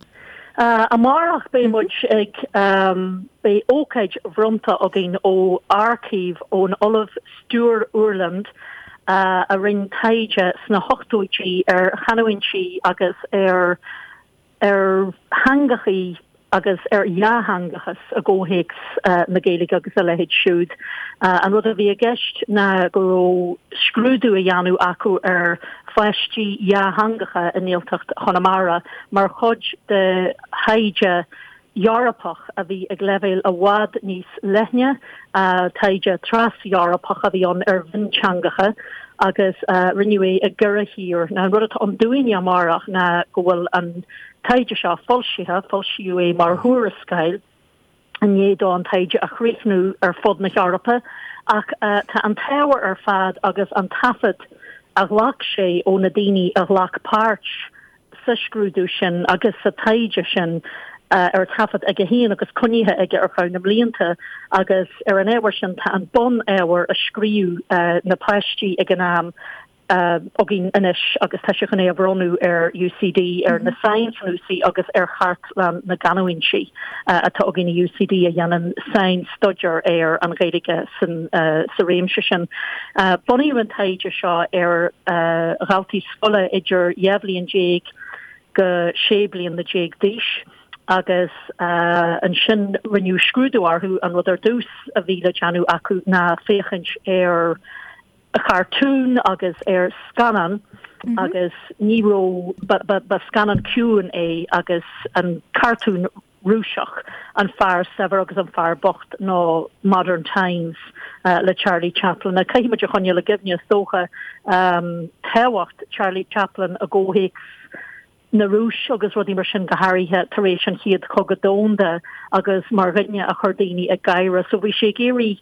Amárach beidh muid ag, beidh ócáid bhronnta againn ó aircív ón Ollamh Stuart Urland a rinne taighde sna hochtóidí ar chanúintí agus ar ar theangachaí agus ar dhátheangachas i gcomhthéacs na Gaeilge agus a leithéid siúd. An rud a bhí i gceist ná go raibh scrúdú á dhéanamh acu ar pháistí dhátheangacha i nGaeltacht Chonamara mar chuid de thaighde. Eorpach a bhí ag leibhéal i bhfad níos leithne, taighde tras-Eorpach a bhí ann ar mhionteangacha agus rinneadh é i gceithre thír. Now an rud atá ann dúinne amárach ná go bhfuil an taighde seo foilsithe, foilsíodh é mar thuarascáil i ndiaidh dó an taighde a chríochnú ar fud na hEorpa ach tá an t-ábhar ar fad agus an taifead a ghlac sé ó na daoine a ghlac páirt sa scrúdú sin agus sa taighde sin ar taifead aige féin agus coinnithe aige ar feadh na mblianta agus ar an ábhar sin tá an bun-ábhar a scríobh na páistí ag an am againn anois agus tá sé chun é a bhronnadh ar UCD, ar na sainchnuasaigh agus ar Chartlann na gCanúintí atá againn i UCD a dhéanann sain-staidéar ar an Ghaeilge sa réimse sin. Bunaíodh an taighde seo ar dhaltaí scoile idir 12 bhliain go 16 bliana d'aois agus ansin rinneadh scrúdú orthu. An rud ar dtús a bhí le déanamh acu ná féachaint ar chartún agus ar scannán agus ní raibh, ba scannán ciúin é agus an cartún Rúiseach, An Fear Saibhir agus an Fear Bocht nó Modern Times le Charlie Chaplin. Now caithfidh muid a choinneáil i gcuimhne, is dócha, tábhacht Charlie Chaplin i gcomhthéacs na Rúise agus rudaí mar sin, go háirithe tar éis an Chéad Chogadh Domhanda agus mar dhuine a chuir daoine ag gáire. So bhí sé ag iarraidh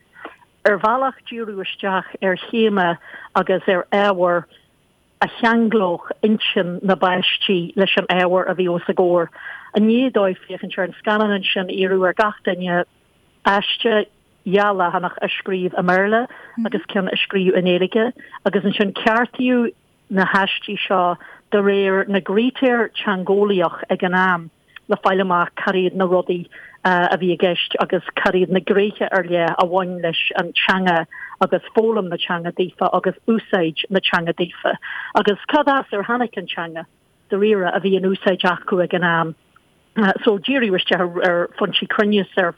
ar bhealach díriú isteach ar théama agus ar ábhar a cheanglódh intinn na bpáistí leis an ábhar a bhí os a gcomhair. I ndiaidh dóibh féachaint ar an scannán ansin, iarradh ar gach duine aiste dha leathanach a scríobh i mBéarla agus ceann a scríobh i nGaeilge agus ansin ceartaíodh na haistí seo de réir na gcritéar teangeolaíoch ag an am. le fáil amach cad iad na rudaí a bhí i gceist agus cad iad na gnéithe ar leith a bhain leis an teanga agus foghlaim na teanga daofa agus úsáid na teanga daofa agus cad as ar tháinig an teanga dáiríre a bhí in úsáid acu ag an am. So díríodh isteach ar phointí cruinnis, ar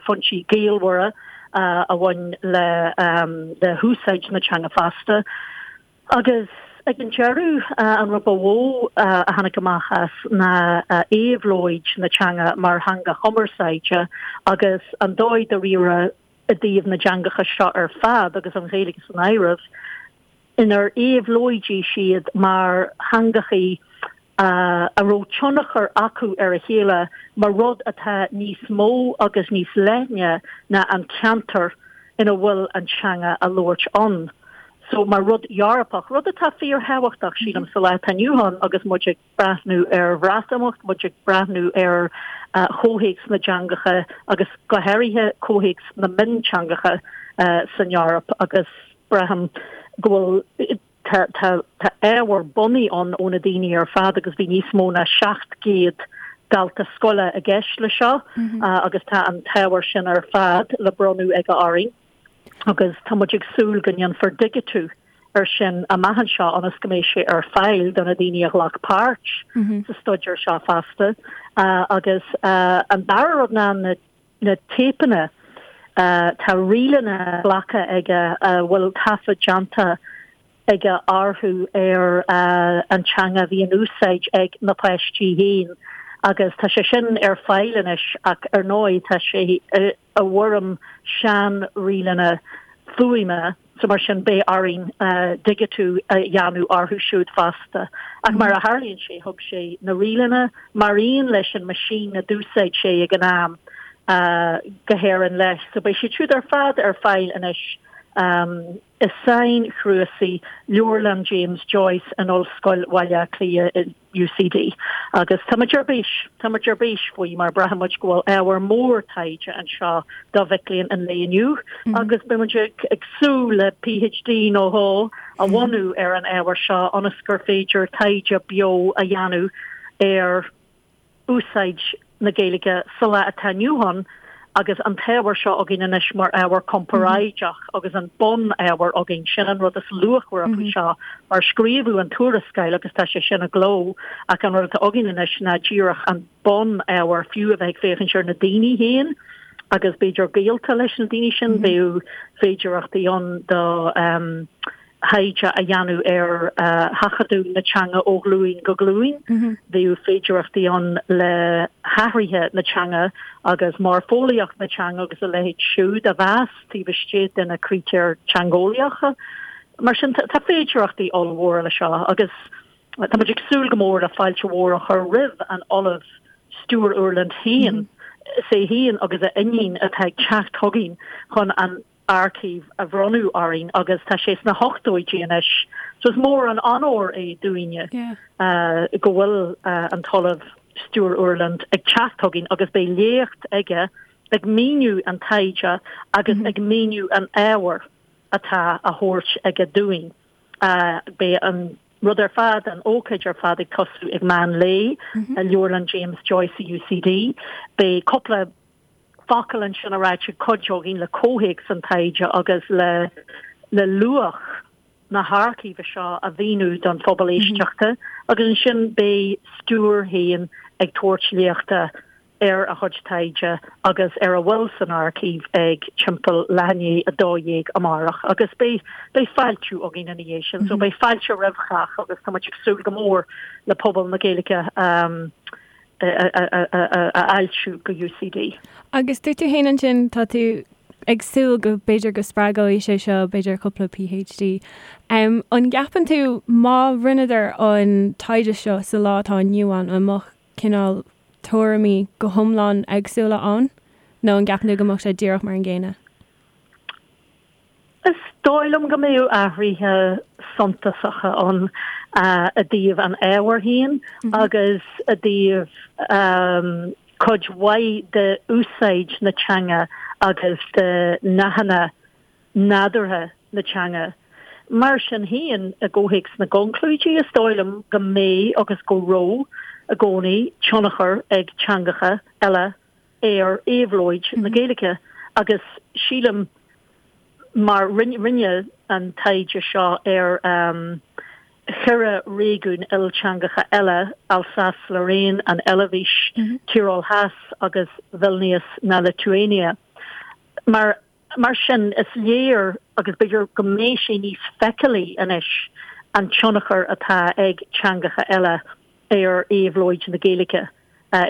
phointí gaolmhara a bhain le húsáid na teanga fosta. Agus ag an deireadh, an rud ba mhó a tháinig amach as ná éabhlóid na teanga mar theanga chumarsáide agus an dóigh dáiríre i dtaobh na dteangacha seo ar fad, agus an Ghaeilge san áireamh, inar éabhlóidigh siad mar theangachaí a raibh tionchar acu ar a chéile mar rud atá níos mó agus níos leithne ná an ceantar ina bhfuil an teanga á labhairt ann. So mar rud Eorpach, rud atá fíorthábhachtach, sílim, sa lá atá inniu ann agus muid ag breathnú ar Bhreatimeacht, muid ag breathnú ar chomhthéacs na dteangacha agus go háirithe comhthéacs na mionteangacha san Eoraip agus braithim go bhfuil Tá ábhar bunaidh ann ó na daoine ar fad agus bhí níos mó ná 700 dalta scoile i gceist le seo agus tá an t-ábhar sin ar fad le bronnadh aige orainn agus tá muid ag súil go ndéanfar digitiú ar sin amach anseo ionas go mbeidh sé ar fáil do na daoine a ghlac páirt sa staidéar seo fosta. Agus an dara rud ná na na téipeanna, tá ríleanna glactha aige a bhfuil taifead déanta aige orthu ar an teanga a bhí in úsáid ag na páistí féin agus tá sé sin ar fáil anois ach ar ndóigh tá sé i bhfoirm sean-ríleanna fuaime. So mar sin beidh orainn digitiú a dhéanamh orthu siúd fosta. Ach mar a tharlaíonn sé, thug sé na ríleanna mar aon leis an meaisín a d'úsáid sé ag an am go hÉirinn leis. So beidh siad siúd ar fad ar fáil anois i sainchnuasaigh Leabharlann James Joyce in Ollscoil Bhaile Átha Cliath i UCD. Agus tá muid ar bís, tá muid ar bís faoi mar braitheann muid go bhfuil ábhar mór taighde anseo do mhic léinn an lae inniu agus beidh muid ag súil le PhD nó dhó a bhunú ar an ábhar seo ionas gur féidir taighde beo a dhéanamh ar úsáid na Gaeilge sa lá atá inniu ann agus an t-ábhar seo againn anois mar ábhar comparáideach agus an bun-ábhar againn. Sin an rud is luachmhaire faoi seo mar scríobhadh an tuarascáil agus tá sé sin i gcló ach an rud atá againn anois ná díreach an bun-ábhar fiú a bheith ag féachaint ar na daoine féin agus b'fhéidir gaolta leis na daoine sin, bheadh féidearthachtaí ann do. thaighde a dhéanamh ar sheachadadh na teanga ó ghlúin go glúin. Bheadh féidearthachtaí ann le hathruithe na teanga agus moirfeolaíocht na teanga agus a leithéid siúd a mheas taobh istigh de na critéir teangeolaíocha. Mar sin, tá féidearthachtaí ollmhóra le seo agus tá muid ag súil go mór le fáilte mhór a chur roimh an Ollamh Stuart Urland féin. Is é féin agus a iníon atá ag teacht chugainn chun an aircív a bhronnadh orainn agus tá sé sna hochtóidí anois so is mór an onóir é dúinne go bhfuil an tOllamh Stuart Urland ag teacht chugainn agus beidh léacht aige ag míniú an taighde agus ag míniú an ábhair atá á thabhairt aige dúinn. Beidh an rud ar fad, an ócáid ar fad ag tosú ag meán lae i Leabharlann James Joyce i UCD. Beidh cúpla focal ansin a ráite ag cuid againn le comhthéacs an taighde agus le le luach na haircíve seo a mhíniú don phobal éisteachta agus ansin beidh Stuart féin ag tabhairt léachta ar a chuid taighde agus ar a bhfuil san aircív ag timpeall leath i ndiaidh 12 amárach agus beidh beidh fáiltiú againn ina dhiaidh sin so beidh fáilte roimh chách agus tá muid ag súil go mór le pobal na Gaeilge a fháiltiú go UCD. Agus dúirt tú féin ansin, tá tú ag súil go b'fhéidir go spreagóidh sé seo b'fhéidir cúpla PhD. An gceapann tú má rinneadar an taighde seo sa lá atá inniu ann, an mbeadh cineál tuairimí go hiomlán éagsúla ann nó an gceapann tú go mbeadh sé díreach mar an gcéanna? Is dóigh liom go mbeadh athruithe suntasacha ann i dtaobh an ábhair féin agus i dtaobh cuid mhaith de úsáid na teanga agus de nathanna nádúrtha na teanga. Mar sin féin, i gcomhthéacs na gconclúidí, is dóigh liom go mbeidh agus go raibh i gcónaí tionchar ag teangacha eile ar éabhlóid na Gaeilge agus sílim mar rinneadh an taighde seo ar cheithre réigiún ilteangacha eile, Alsace-Lorraine, an Eilvéis, Tyrol Theas agus Vilnius na Liotuáine. Mar Mar sin, is léir, agus b'fhéidir go mbeidh sé níos feiceálaí anois, an tionchar atá ag teangacha eile ar éabhlóid na Gaeilge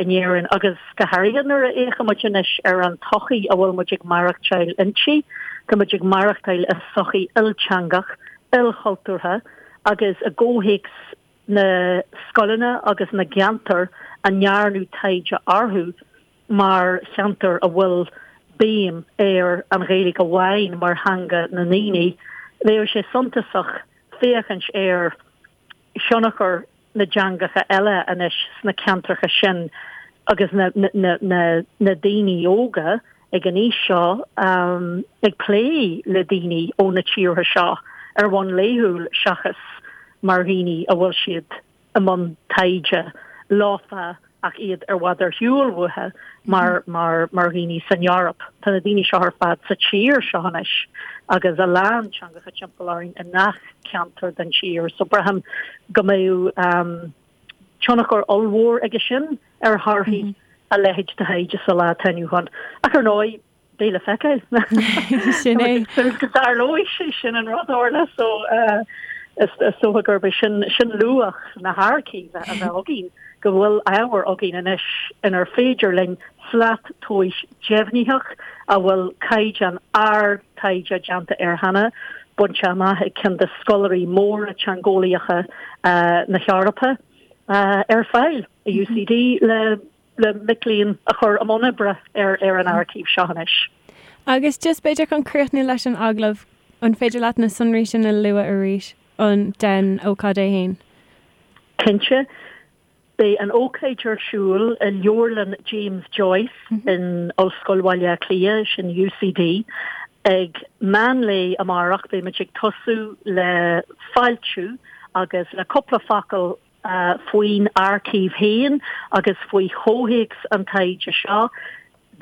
in Éirinn, agus go háirithe nuair a fhéachaimid anois ar an tsochaí a bhfuil muid ag maireachtáil inti. Tá muid ag maireachtáil i sochaí ilteangach, ilchultúrtha, agus i gcomhthéacs na scoileanna agus na gceantar a ndearnadh taighde orthu, mar cheantar a bhfuil béim ar an Ghaeilge amháin mar theanga na ndaoine, bheadh sé suntasach féachaint ar thionchar na dteangacha eile anois sna ceantracha sin agus na daoine óga ag an aois seo ag plé le daoine ó na tíortha seo ar bhonn laethúil seachas mar dhaoine a bhfuil siad i mbun taighde leofa ach iad i bhfad ar shiúl uathu mar mar mar dhaoine san Eoraip. Tá na daoine seo ar fad sa tír seo anois agus a lán teangacha timpeall orainn i ngach ceantar den tír so braithim go mbeadh tionchar ollmhór aige sin ar thorthaí a leithéid de thaighde sa lá atá inniu ann. Ach ar ndóigh, beidh le feiceáil. Sin é. Go dtarlóidh sé sin an rud Orla so is dócha gurb é sin sin luach na haircíve a bheith againn, go bhfuil ábhar againn anois inar féidir linn slat tomhais deimhnitheach a bhfuil caighdeán ard taighde déanta air cheana, bainte amach ag ceann de scoláirí móra teangeolaíocha na hEorpa, ar fáil i UCD le le mic léinn a chur i mbun oibre ar ar an aircív seo anois. Agus just b'fhéidir chun críochnú leis an agallamh, an féidir leat na sonraí sin a lua arís, an den ócáid é fhéin? Cinnte. Beidh an ócáid ar siúl i Leabharlann James Joyce in Ollscoil Bhaile Átha Cliath, sin UCD, ag meán lae amárach. Beidh muid ag tosú le fáiltiú agus le cúpla focal faoin aircív féin agus faoi chomhthéacs an taighde seo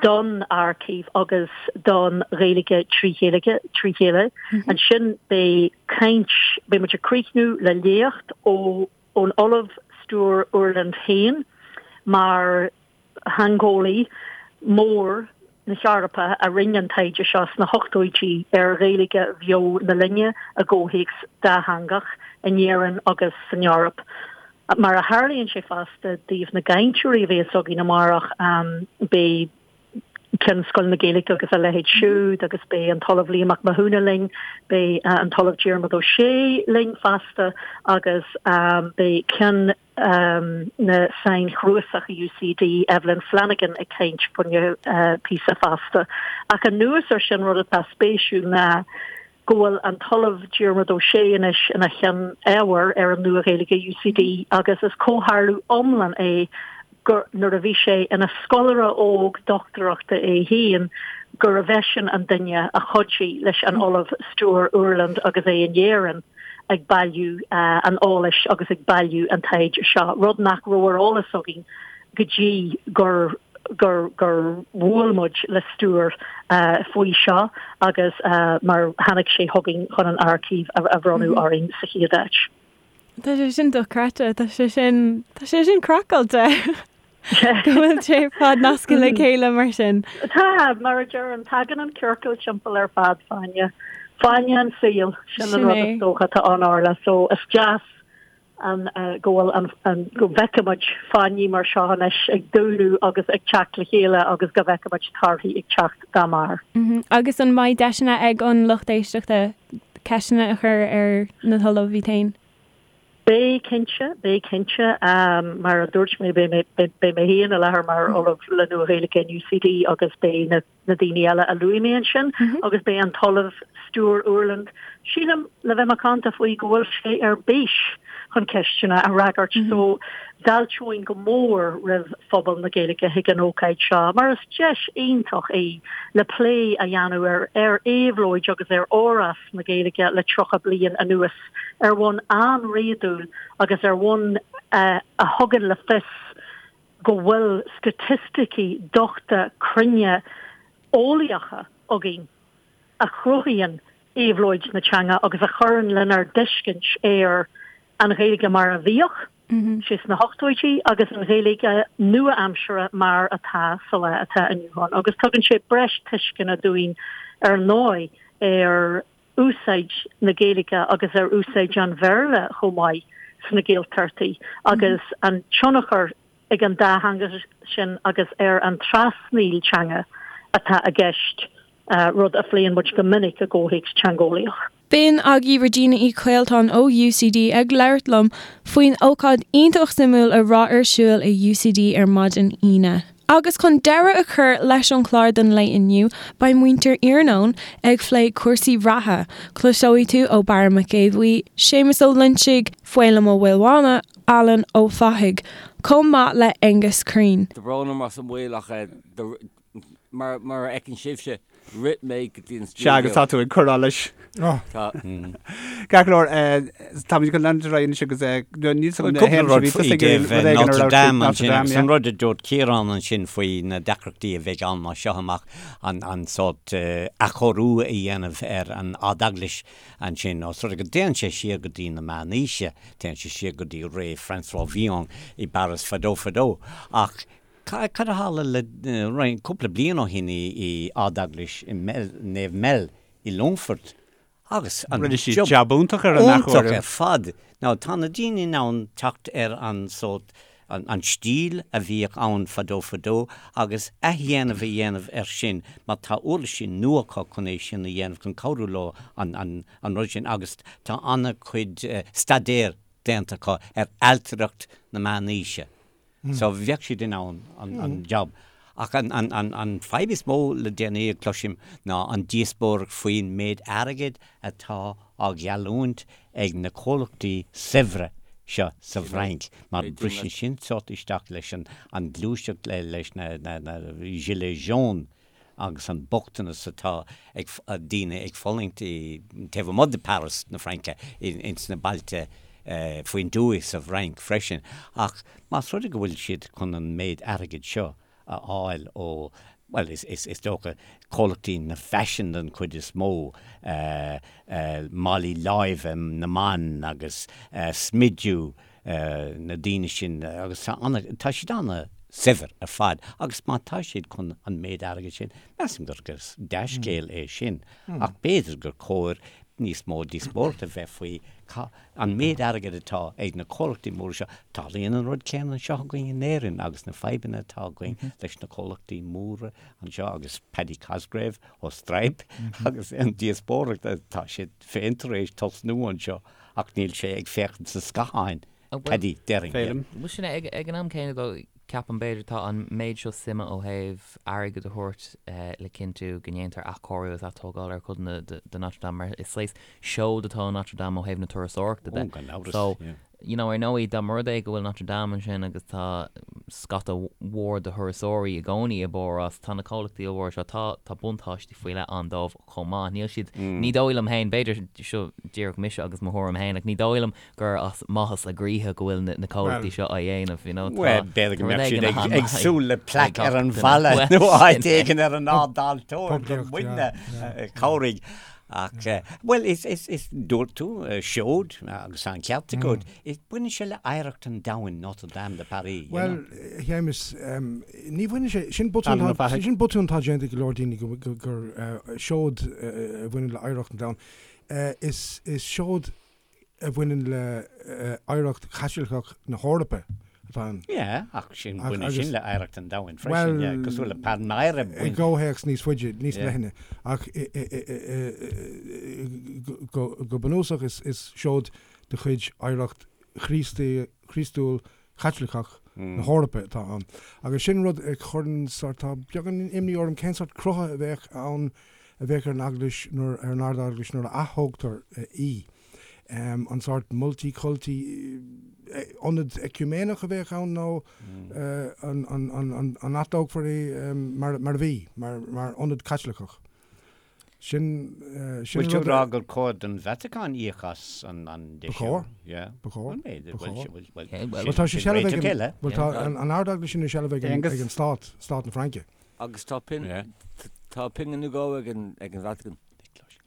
don aircív agus don Ghaeilge trí chéile. Ansin beidh caint, beidh muid ag críochnú le léacht ó ón Ollamh Stuart Urland féin mar theangeolaí mór. na hEorpa a rinne an taighde seo sna hochtóidí ar Ghaeilge bheo na linne i gcomhthéacs dátheangach in Éirinn agus san Eoraip. Mar a tharlaíonn sé fosta, i dtaobh na gcainteoirí a bheas againn amárach, beidh Ceann Scoil na Gaeilge agus a leithéid siúd agus beidh an tOllamh Liam Mac Mathúna linn, beidh an tOllamh Diarmuid Ó Sé linn fosta agus beidh Ceann na Sainchnuasach i UCD, Evelyn Flanagan ag caint fá choinne píosa fosta. Ach anuas ar sin rud atá spéisiúil ná go bhfuil an tOllamh Diarmuid Ó Sé anois ina Cheann Ábhair ar an Nua-Ghaeilge i UCD agus is comhtharlú iomlán é gur nuair a bhí sé ina scoláire óg dochtúireachta é féin gurbh eisean an duine a chuidigh leis an Ollamh Stuart Ueland agus é in Éirinn ag bailiú an eolais agus ag bailiú an taighde seo, rud nach raibh ar eolas againn go dtí gur gur gur bhuail muid le Stuart faoi seo agus mar tháinig sé chugainn chun an aircív a bhronnadh orainn sa chéad áit. Tá sé sin dochreidte, tá sé sin, tá sé sin craiceáilte go bhfuil sé ar fad nasctha le chéile mar sin. Tá, mar a deirim, tagann an ciorcal timpeall ar fad, fáinne, fáinne an tsaoil, sin an rud is dócha atá ann Orla, so is deas an go bhfuil an an go bhfeicimid fáinní mar seo anois ag dúnadh agus ag teacht le chéile agus go bhfeicimid torthaí ag teacht dá mbarr. Agus an mbeidh deiseanna ag an lucht éisteachta ceisteanna a chur ar na hOllaimh iad féin? Beidh cinnte, beidh cinnte. Mar a dúirt mé, beidh mé beidh mé féin i láthair mar Ollamh le Nua-Ghaeilge in UCD agus beidh na na daoine eile a luaigh mé ansin agus beidh an tOllamh Stuart Ueland, sílim, le bheith macánta faoi go bhfuil sé ar bís chun ceisteanna a fhreagairt so d'fháilteoinn go mór roimh phobal na Gaeilge chuig an ócáid seo mar is deis iontach í le plé a dhéanamh ar ar éabhlóid agus ar fhorás na Gaeilge le 30 bliain anuas ar bhonn an-réadúil agus ar bhonn a thugann le fios go bhfuil staitisticí dochta cruinne eolaíocha againn a chruthaíonn éabhlóid na teanga agus a chuireann lenár dtuiscint ar an Ghaeilge mar a bhíodh sí sna hochtóidí agus an Ghaeilge nua-aimseartha mar atá sa lá atá inniu ann. Agus tugann sé breis tuisceana dúinn ar ndóigh ar úsáid na Gaeilge agus ar úsáid an Bhéarla chomh maith sna Gaeltachtaí agus an tionchar ag an dá theanga sin agus ar an trasnaíl teanga atá i gceist, rud a phléann muid go minic i gcomhthéacs teangeolaíoch. B'in agaibh Regina Uí Chaoltáin ó UCD ag labhairt liom faoin ócáid iontach suimiúil a raibh ar siúl i UCD ar maidin Aoine. Agus chun deireadh a chur leis an chlár don lae inniu, beidh muintir Iarnóin ag phlé cúrsaí reatha. Cloiseoidh tú ó Barra Mac Aodha Bhuí, Séamus Ó Loinsigh, Feidhlim Ó Maolmhána, Alan Ó Fathaigh, chomh maith le Aengus Crean. Tá brón orm as an mhoill ach mar a fheiceann sibhse, rith mé go dtí an stiúideo. Sea, agus tá tú ag cur allais. Tá. Ceart go leor, táimid chun leanúint ar aghaidh anois agus níl Bhuel, cúpla rud faoi dtaobh Notre Dame ansin agus an rud a dúirt Ciarán ansin faoi na deacrachtaí a bheidh ann as seo amach, an sórt athchóiriú a dhéanamh ar an Ard-Eaglais ansin, os rud é go dtéann sé siar go dtí na Meánaoise, téann sé siar go dtí ré François Villon i bPáras fadó fadó. Ach Cad a tharla le roinnt, cúpla bliain ó shin i Ard-Eaglais Naomh Mel i Longfort agus an Rinne siad jab iontach ar an athchóiriú. Iontach ar fad. Now tá na daoine in ann teacht ar an sórt, an stíl a bhíodh ann fadó fadó agus athdhéanamh a dhéanamh air sin mar tá uirlisí nua acu chun é sin a dhéanamh, chun cabhrú leo an rud sin agus tá an-chuid staidéir déanta acu ar ailtireacht na meánaoise. So bheadh siad in ann an job. Ach an fadhb is mó le déanaí a chloisim ná an díospóireacht faoin méid airgid atá á gheallúint ag na comhlachtaí saibhre seo sa bhFrainc, mar briseann sin sórt isteach leis an gluaiseacht leis na gilets jaunes. agus an bochtanas atá ag daoine ag fulaingt taobh amuigh de Paris na Fraince, ins na bailte faoin dtuaith sa bhFrainc freisin. Ach más rud é go bhfuil siad chun an méid airgid seo a fháil ó, bhuel, is dócha, comhlachtaí na faisin den chuid is mó, málaí láimhe na mban agus smidiú na daoine sin agus tá siad ana. saibhir ar fad agus má tá siad chun an méid airgid sin, measaim gur dea-scéal é sin ach b'fhéidir gur chóir níos mó díospóireachta a bheith faoi an méid airgid atá ag na comhlachtaí móra seo. Tarlaíonn an rud céanna anseo againn in Éirinn agus na fadhbanna atá againn leis na comhlachtaí móra anseo agus Paddy Cosgrave ó Stripe agus an díospóireacht atá siad féin tar éis tosnú anseo ach níl sé ag féachaint sa scáthán. Paddy, déarfainn. Bhuel sin é, ag an am céanna though, ceapaim b'fhéidir tá an méid seo suime ó thaobh airgead a thabhairt le cinntiú go ndéantar athchóiriú agus atógáil ar chodanna de Notre Dame mar is saghas seoid atá i Notre Dame ó thaobh na turasóireachta de. Ó, gan amhras, So, yeah. you know, ar ndóigh dá mba rud é go bhfuil Notre Dame ansin agus tá scata mhór de thurasóirí i gcónaí i bPáras, tá na comhlachtaí ollmhóra seo, tá, tá buntáistí faoi leith ann dóibh chomh maith. Níl siad, ní dóigh liom féin, b'fhéidir, seo díreach mise agus mo thuairim féin, ach ní dóigh liom gur as maitheas a gcroíthe go bhfuil na comhlachtaí seo á dhéanamh, you know, tá Bhuel, b'fhéidir go rud mbeadh éigin siad a ag súil le plaic ar an bhalla nó áit éigin ar an ard-altóir gur muidne a chabhraigh. Ach, bhuel, is, is, is, dúirt tú, seoid, agus tá an ceart agat, baineann sé le oidhreacht an domhain, Notre Dame de Paris, you Bhuel, know. a Shéamais, ní bhaineann sé, sin botún Alan Ó atá, Fathaigh. sin botún atá déanta ag go leor daoine go, go, gur seoid a bhaineann le oidhreacht an domhain. Is, is seoid a bhaineann le hoidhreacht Chaitliceach na hEorpa atá ann. Yeah, ach sin, baineann sin le hoidhreacht an domhain freisin, yeah, cosúil le Palmyra. I gcomhthéacs níos faide, níos leithne, ach go bunúsach is seoid de chuid oidhreacht Chríostúil Chaitliceach na hEorpa atá ann. Agus sin rud a chuireann sórt, tá beagán imní orm cén sórt crutha a bheadh ann, a bheadh ar an Eaglais nuair, ar an Ard-Eaglais nuair a aththógtar í. An sórt multi-culti, ionad eiciúiméineach a bheadh ann nó an, an, an, an atógfar í mar, mar a bhí, mar, mar ionad Caitliceach? Sin, sin Bhfuil tú rud ag rá gur chóir don Vatacáin íoc as an an Ba chóir. Yeah. Ba chóir. Bhuel, b'fhéidir. Ba Bhuel, chóir. bhuel, bhuel, Yeah, well, Bhuel, tá sé sin seilbh ag réiteach an, eile. bhuel, tá an, an Ard-Eaglais sin i seilbh ag an, Aonghus. ag an Stát, Stát na Fraince. Agus tá pin, Yeah. tá pingin nó dhó ag an, ag an Vatican.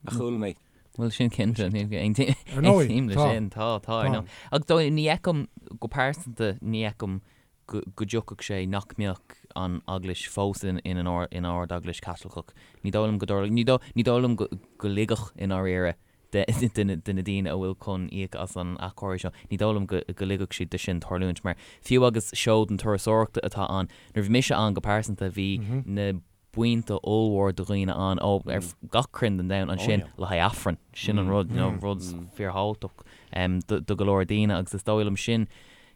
A chuala mé. Bhuel, sin cinnte, ní Ar ndóigh, aontaím leis tá. sin, tá, tá, ar Tá. ndóigh. Ach dóigh, ní fheicim, go pearsanta, ní fheicim go dtiocfadh sé nach mbeadh an Eaglais fós ina Ard-Eaglais Chaitliceach. Ní dóigh liom go dtarlódh, ní dóigh liom go ligfeadh i ndáiríre de de na daoine a bhfuil chun íoc as an athchóiriú seo, ní dóigh liom go ligfeadh siad de sin tarlúint mar fiú agus seoid na turasóireachta atá ann, nuair a bhí mise ann go pearsanta bhí na buíonta ollmhór de dhaoine ann ó ar gach cruinn den domhan ansin le haghaidh Aifreann. Sin an rud, you know, rud fíorthábhachtach do go leor daoine agus is dóigh liom sin,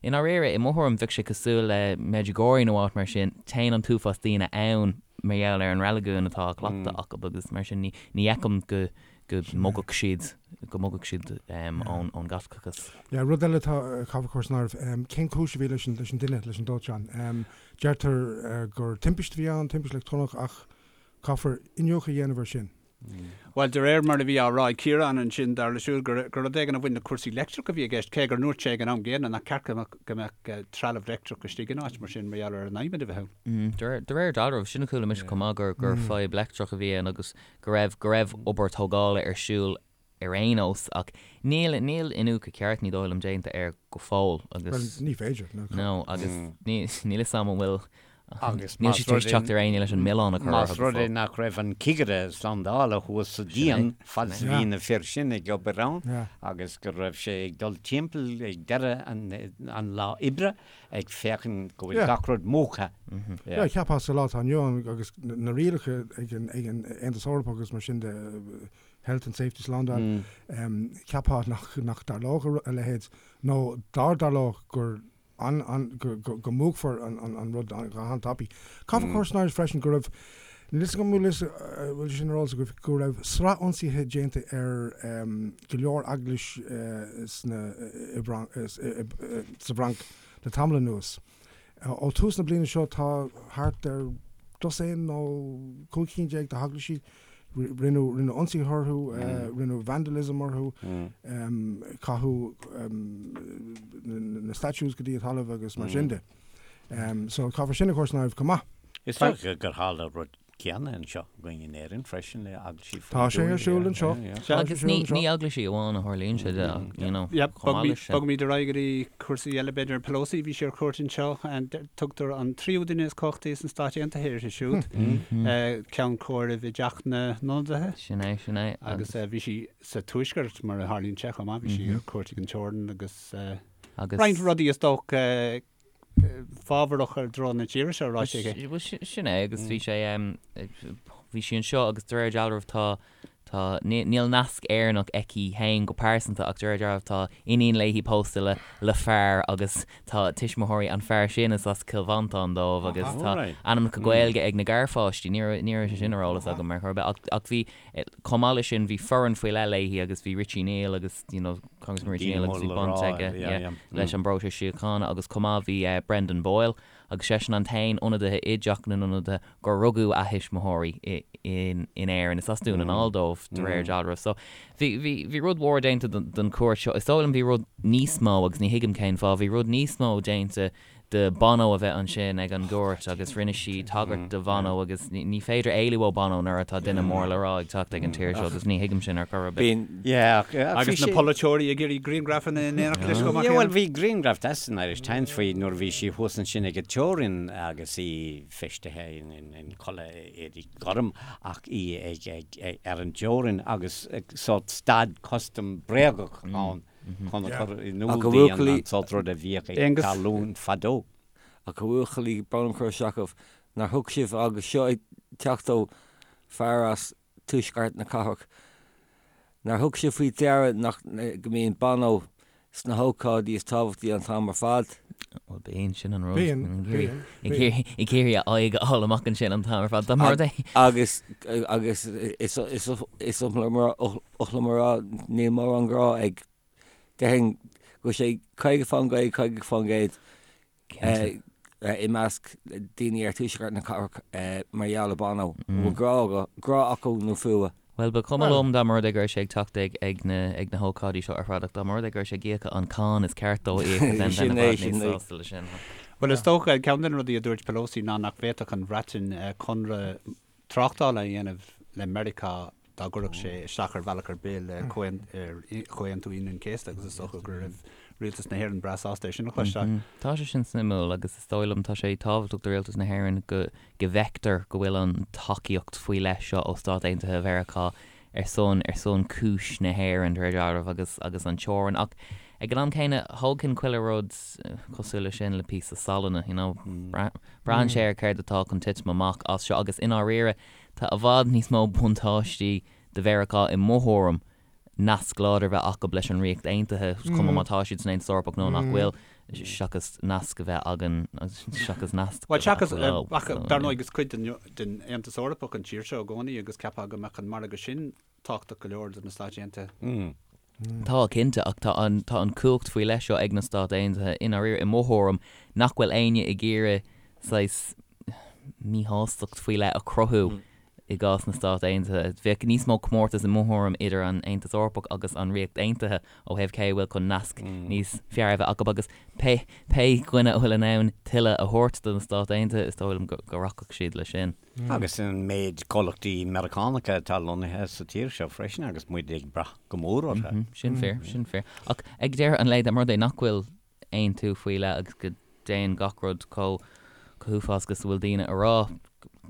i ndáiríre, i mo thuairim, bheadh sé cosúil le Medjugorje nó áit mar sin, téann an t-uafás daoine ann mar gheall ar an reiligiún atá á chleachtadh acu agus mar sin ní fheicim go go mbogfadh siad, go mbogfadh siad ón ón gCaitliceachas. Yeah, rud eile atá caithfear a chur san áireamh, cén chúis a bhí leis an leis an dtine, leis an dóiteán? Deirtear gur timpiste a bhí ann, timpiste leictreonach, ach caithfear iniúchadh a dhéanamh air sin. Bhuel, de réir mar a bhí á rá ag Ciarán ansin, dar leis siúd gur rud éigin a bhain le cúrsaí leictreach a bhí i gceist, cé gur ndúirt sé ag an am gcéanna nach ceart go mbeadh trealamh leictreach istigh in áit mar sin mar gheall ar an adhmad a bheith ann. De réir dealraimh, sin a chuala mise chomh maith, gur fadhb leictreach a bhí ann agus go raibh go raibh obair tógála ar siúl ar aon nós, ach níl, níl iniúchadh ceart, ní dóigh liom, déanta air go fóill agus. Bhuel, ní féidir, no. No, agus ní, níl 'fhios a'm an bhfuil, Agus níl más siad tar rud éis é, teacht ar aon ní leis an milleán a chur más orthu go rud é fóill. nach raibh an cigire slándála thuas sa Sin é, díon fad is a sin é. bhí na fir sin ag obair ann Yeah. agus go raibh sé ag dul timpeall ag deireadh an, an lá oibre ag féachaint go bhfuil Yeah. gach rud múchta. Yeah, cheapfá sa lá atá inniu ann agus na rialacha ag an, ag an Aontas Eorpach agus mar sin de, Health and Safety Slándáil, cheapfá nach dtarlódh a leithéid, nó dá dtarlódh gur go múchfar an rud go han-tapaidh. Caithfear cur san áireamh freisin go raibh, níl 'fhios agam an bhfuil sé sin ar eolas agaibh, go raibh sraith ionsaithe déanta ar go leor eaglais sa bhFrainc le tamall anuas. Ó thús na bliana seo tá thart ar dosaen nó 15 cinn de heaglaisí, rinneadh ionsaithe orthu, rinneadh vandalism orthu, caitheadh na statues go dtí an talamh agus mar sin de. So caithfear sin a chur san áireamh chomh maith. Is dócha gur tharla rud. céanna anseo againn in Éirinn freisin le eaglaisí faoin Tá sé ar siúl anseo. Agus ní ní eaglaisí amháin a tharlaíonn sé de ach, you know, chomh maith leis sin. Bogfaimid ar aghaidh go dtí cúrsaí eile b'fhéidir. Pelosi, bhí sí ar cuairt anseo. Tugtar an tríú duine is cumhachtaí sna Stáit Aontaithe uirthi siúd. Ceann comhairimh i dTeach na nIonadaithe. Sin é, sin é. Agus bhí sí sa Tuaisceart mar a tharlaíonn sé chomh maith. Bhí sí ar cuairt ag an teorainn agus roinnt rudaí is dócha fábharach i dtreo na tíre seo ráite aici. Bhuel, sin é agus bhí sé, bhí sí anseo agus de réir dealraimh tá, tá, níl nasc Éireannach aici féin go pearsanta ach de réir dealraimh tá iníon léi pósta le, le fear agus tá tuismitheoirí an fear sin is as Cill Mhantáin dóibh agus tá ainmneacha Gaeilge ag na garpháistí, ní raibh, ní raibh sé sin ar eolas agam ar chor ar bith ach, ach bhí, Chomh maith leis sin, bhí foireann faoi leith léi agus bhí Richie Neal agus, you know, Congressman Richie Neal agus bhí baint aige, yeah, leis an bpróiseas síochána agus chomh maith bhí Brendan Boyle agus seisean an t-aon ionadaithe i dTeach na nIonadaithe gur rugadh a thuismitheoirí in Éirinn. Is as Dún na nGall dóibh de réir dealraimh. So bhí, bhí, bhí rud mhór déanta den chuairt seo. Is dóigh liom bhí rud níos mó agus ní thuigim cén fáth, bhí rud níos mó déanta de Bono a bheith ansin ag an gcuairt agus rinne sí tagairt do Bhono agus ní féidir éalú ó Bono nuair atá duine mór le rá ag teacht ag an tír seo agus ní thuigim sin ar chor ar bith. Agus na polaiteoirí ag iarraidh grianghrafanna in éineacht leis chomh maith céanna. Bhuel bhí grianghraf deas san Irish Times faoi nuair a bhí sí thuas ansin ag an teorainn agus í feistithe in culaith éadaí gorm ach í ag ar an dteorainn agus sórt stad custam bréagach ann. chun a chur in iúl di an sórt rud a bhíodh ag tarlú fadó. Ach a bhuachaillí, brón orm cur isteach oraibh, nár thug sibh, agus seo ag teacht ó fear as tuaisceart na cathrach, nár thug sibh faoi deara nach, go mbíonn Bono sna hócáidí is tábhachtaí an t-am ar fad? Bhuel, bíonn, sin an rud. Bíonn, bíonn, bíonn. Ag iarraidh a aghaidh a fháil amach ansin an t-am ar fad. Dá mba rud é. Agus, agus is, is, is oth liom a rá, níl mórán grá ag, déarfainn go bhfuil sé 50%, 50% i measc daoine ar tuaisceart na cathrach mar gheall ar Bono. An bhfuil grá, grá acu nó fuath? Bhuel, ba chuma liom dá mba rud é go raibh sé ag teacht ag ag na ag na hócáidí seo ar fad ach dá mba rud é go raibh sé ag íoc an cáin is ceart dó a íoc then bheinn i bhfad níos sásta leis sin. Bhuel, is dócha, ceann de na rudaí a dúirt Pelosi ná nach bhféadfadh an Bhreatain conradh tráchtála a dhéanamh le Meiriceá dá gcuirfeadh sé isteach ar bhealach ar bith le Comhaontú Aoine an Chéasta agus is dócha go raibh Rialtas na hÉireann breá sásta é sin a chloisteáil. Tá sé sin suimiúil agus is dóigh liom tá sé tábhachtach do Rialtas na hÉireann go go bhfeictear go bhfuil an tacaíocht faoi leith seo ó Stáit Aontaithe Mheiriceá ar son ar son cúis na hÉireann de réir dealraimh agus agus an teorainn ach ag an am céanna thógfainn chuile rud cosúil leis sin le píosa salainne you know braitheann sé ar céard atá chun titim amach as seo agus i ndáiríre tá i bhfad níos mó buntáistí do Mheiriceá i mo thuairim nasc láidir a bheith acu leis an Ríocht Aontaithe, cuma má tá siad san Aontas Eorpach nó nach bhfuil, seachas nasc a bheith againn, seachas nasc a bheith acu leo. Ach dar ndóigh is cuid den Aontas Eorpach an tír seo i gcónaí agus cheapfá go mbeadh an margadh sin tábhachtach go leor do na Stáit Aontaithe. Tá, cinnte, ach tá an, tá an cumhacht faoi leith seo ag na Stáit Aontaithe i ndáiríre, i mo thuairim, nach bhfuil éinne ag iarraidh saghas míshástacht faoi leith a chruthú I gcás na Stát Aontaithe, bheadh níos mó comórtas i mo thuairim idir an Aontas Eorpach agus an Ríocht Aontaithe ó thaobh cé a bhfuil chun nasc níos fearr a bheith acu agus pé pé dhuine a bhfuil in ann tuilleadh a thabhairt do na Stáit Aontaithe, is dóigh liom go go rachadh siad leis sin. Agus an méid comhlachtaí Meiriceánacha atá lonnaithe sa tír seo freisin agus muid ag brath go mór orthu. Sin fíor, sin fíor. Ach ag deireadh an lae, dá mba rud é nach bhfuil aontú faoi leith agus go dtéann gach rud chomh huafásach is a bhfuil daoine a rá,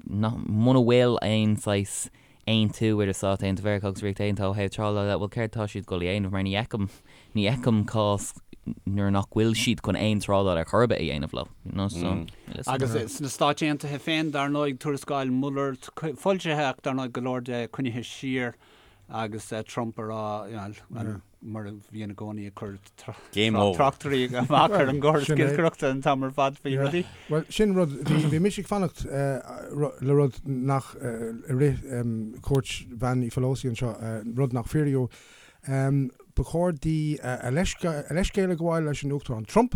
nach, muna bhfuil aon saghas aontú idir Stáit Aontaithe Mheiriceá agus Ríocht Aontaithe ó thaobh trádála de, bhuel céard atá siad ag dul a dhéanamh mar ní fheicim, ní fheicim cás nuair nach bhfuil siad chun aon trádáil ar chor ar bith a dhéanamh leo, you know, so, níl fhios agam. Agus sna Stáit Aontaithe féin, dar ndóigh, tuarascáil Mueller foilsithe ach dar ndóigh go leor de coinnithe siar agus Trump a rá, you know, mar a bhíonn i gcónaí ag cur tráchtairí amach ar an gcóras giolcaireachta an t-am ar fad faoi rudaí. Bhuel, sin rud, bhí mise ag fanacht le rud nach, i rith cuairt Bhean Uí Phelosi anseo, rud nach fíoraíodh. Ba chóir di a leithscéal a ghabháil leis an Uachtarán Trump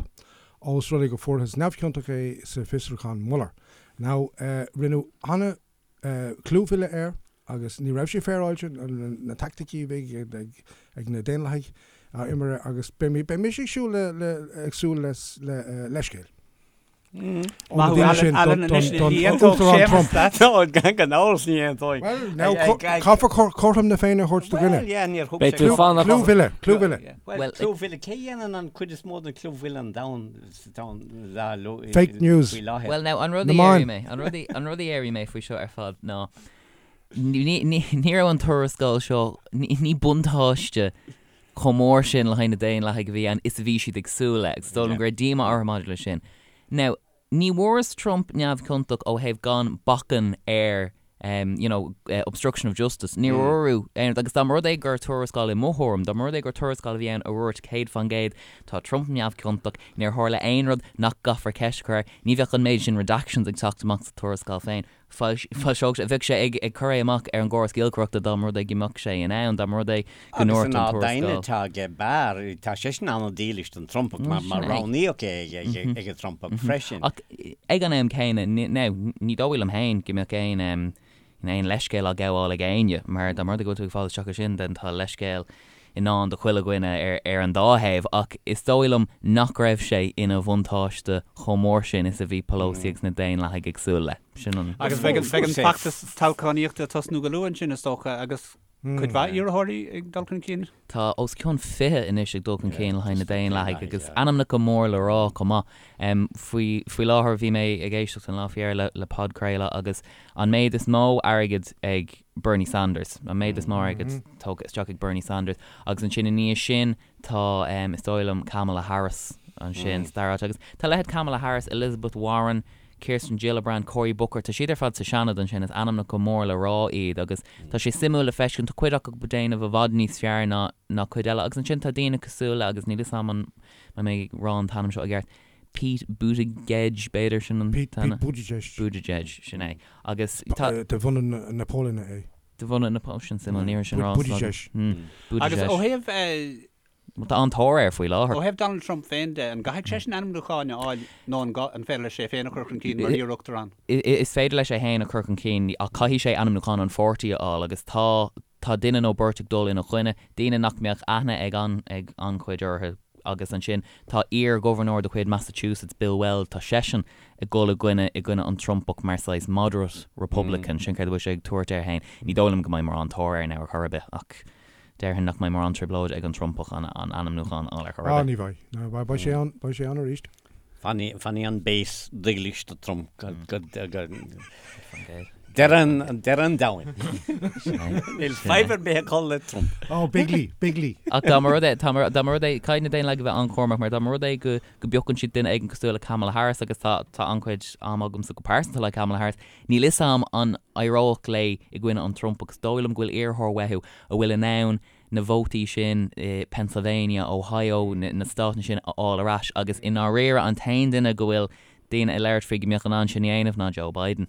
ós rud é go fuarthas neamhchiontach é sa bhfiosrúchán Mueller. Now, rinneadh ana clúmhilleadh air agus ní raibh sé féaráilte, na taicticí a bhí ag na Daonlathaigh á imirt agus beidh mise ag siúl le, ag súil le leithscéal. Ó na daoine sin don Uachtarán Trump. Gan amhras ní aontóidh. Well, now caithfear cothrom na Féinne a thabhairt do dhuine. Well, yeah, níor thug sé. Clúmhilleadh, clúmhilleadh. Well, clúmhilleadh, cé dhéanann an cuid is mó den clúmhilleadh an domhan sa domhan Fake news. faoi láthair? Well, now, an rud a Na meáin. déarfaidh mé, an rud a, an rud a déarfaidh mé faoi seo ar fad ná ní, ní, ní raibh an tuarascáil seo, ní, ní buntáiste chomh mór sin le haghaidh na Daonlathaigh a bhí ann is a bhí siad ag súil le, agus is dóigh liom go raibh díomá orthu maidir leis sin. Now, ní bhfuarthas Trump neamhchiontach ó thaobh gan bacainn ar you know, obstruction of justice. Níor fuaireadh aon rud, agus dá mba rud é gur tuarascáil i mo thuairim, dá mba rud é gur tuarascáil a bhí ann a dhúirt 100% tá Trump neamhchiontach, níor tharla aon rud nach gcaithfear ceist a chur air, ní bheadh an méid sin redactions ag teacht amach sa tuarascáil féin. Foilseodh sé, bheadh sé ag cur é amach ar an gcóras giolcaireachta dá mba rud é go mbeadh sé in ann, dá mba rud é go Agus ndúirt an an ard-aighne tuarascáil. atá aige Barr, tá seisean an-dílis don Trumpach mar mar roghnaíodh é ag an Trumpach freisin. Ach ag an am céanna, now, ní dóigh liom féin go mbeadh aon aon leithscéal á ghabháil ag éinne, mar dá mba rud é go bhfuil tú ag fáil isteach air sin, then tá leithscéal i ndán do chuile dhuine ar an dá thaobh, ach is dóigh liom nach raibh sé ina bhuntáiste chomh mór sin is a bhí Pelosi agus na Daonlathaigh ag súil le. Sin an. Agus beidh an feachtas toghchánaíochta ag tosnú go luath ansin, is dócha, agus cuid mhaith iarrthóirí ag dul chun cinn. Tá os cionn 20 anois ag dul chun cinn le haghaidh na Daonlathaigh agus ainmneacha mór le rá chomh maith. Faoi faoi láthair bhí mé ag éisteacht an lá faoi dheireadh le podchraoladh agus an méid is mó airgid ag Bernie Sanders, an méid is mó airgid tógtha isteach ag Bernie Sanders agus ansin i ndiaidh sin tá is dóigh liom Kamala Harris ansin sa dara háit agus tá leithéid Kamala Harris, Elizabeth Warren, Kirsten Gillibrand, Cory Booker, tá siad ar fad sa Seanad ansin, is ainmneacha mór le rá iad agus tá sé suimiúil le feiscint, tá cuid acu ag déanamh i bhfad níos fearr ná ná cuid eile agus ansin tá daoine cosúil le, agus níl 'fhios a'm an mbeidh mé ag rá an t-ainm seo i gceart, Pete Buttigieg b'fhéidir sin an Pete t-ainm? Pete Buttigieg. Buttigieg, sin é. Agus tá. De bhunadh na Polainne é. De bhunadh na Polainne, sin suimiúil, ní raibh sin ráite agam. Buttigieg. Agus ó thaobh. Tá an-tóir air faoi láthair. Ó thaobh Donald Trump féin de, an gcaithfidh seisean ainmniúchán a fháil nó an an féidir leis é féin a chur chun cinn mar iar-uachtarán? Is féidir leis é féin a chur chun cinn ach caithfidh sé ainmniúchán an pháirtí a fháil agus tá tá duine nó beirt ag dul ina choinne, daoine nach mbeadh aithne ag an ag an-chuid orthu agus ansin tá iar-ghobharnóir de chuid Massachusetts, Bill Weld, tá seisean ag dul i gcoinne i gcoinne an Trumpach mar saghas moderate Republican, sin céard a bhfuil sé ag tabhairt air féin. Ní dóigh liom go mbeidh mórán tóir air now ar chor ar bith ach Déarfainn nach mbeidh mórán trioblóide ag an Trumpach an ainmniúchán a fháil ar chor ar Ah, bith. ní bheidh. No, beidh, beidh sé ann, beidh sé ann arís. Fanfaidh, fanfaidh an base dílis do Trump go, go, go, deireadh an, deireadh an domhain. Níl fadhb ar bith acu le Trump. Oh, Bigley, Bigley. Ach dá mba rud é, tá mar, dá mba rud é, caithfidh na Daonlathaigh a bheith an-chúramach mar dá mba rud é go, go bpiocann siad duine éigin cosúil le Kamala Harris agus tá, tá an-chuid ama agamsa go pearsanta le Kamala Harris, Níl 'fhios a'm an éireodh léi i gcoinne an Trump agus is dóigh liom go bhfuil iarrthóir uathu a bhfuil in ann na vótaí sin i Pennsylvania, Ohio, na státanna sin a fháil ar ais agus i ndáiríre an t-aon duine go bhfuil daoine ag labhairt faoi go mbeadh in ann sin a dhéanamh ná Joe Biden.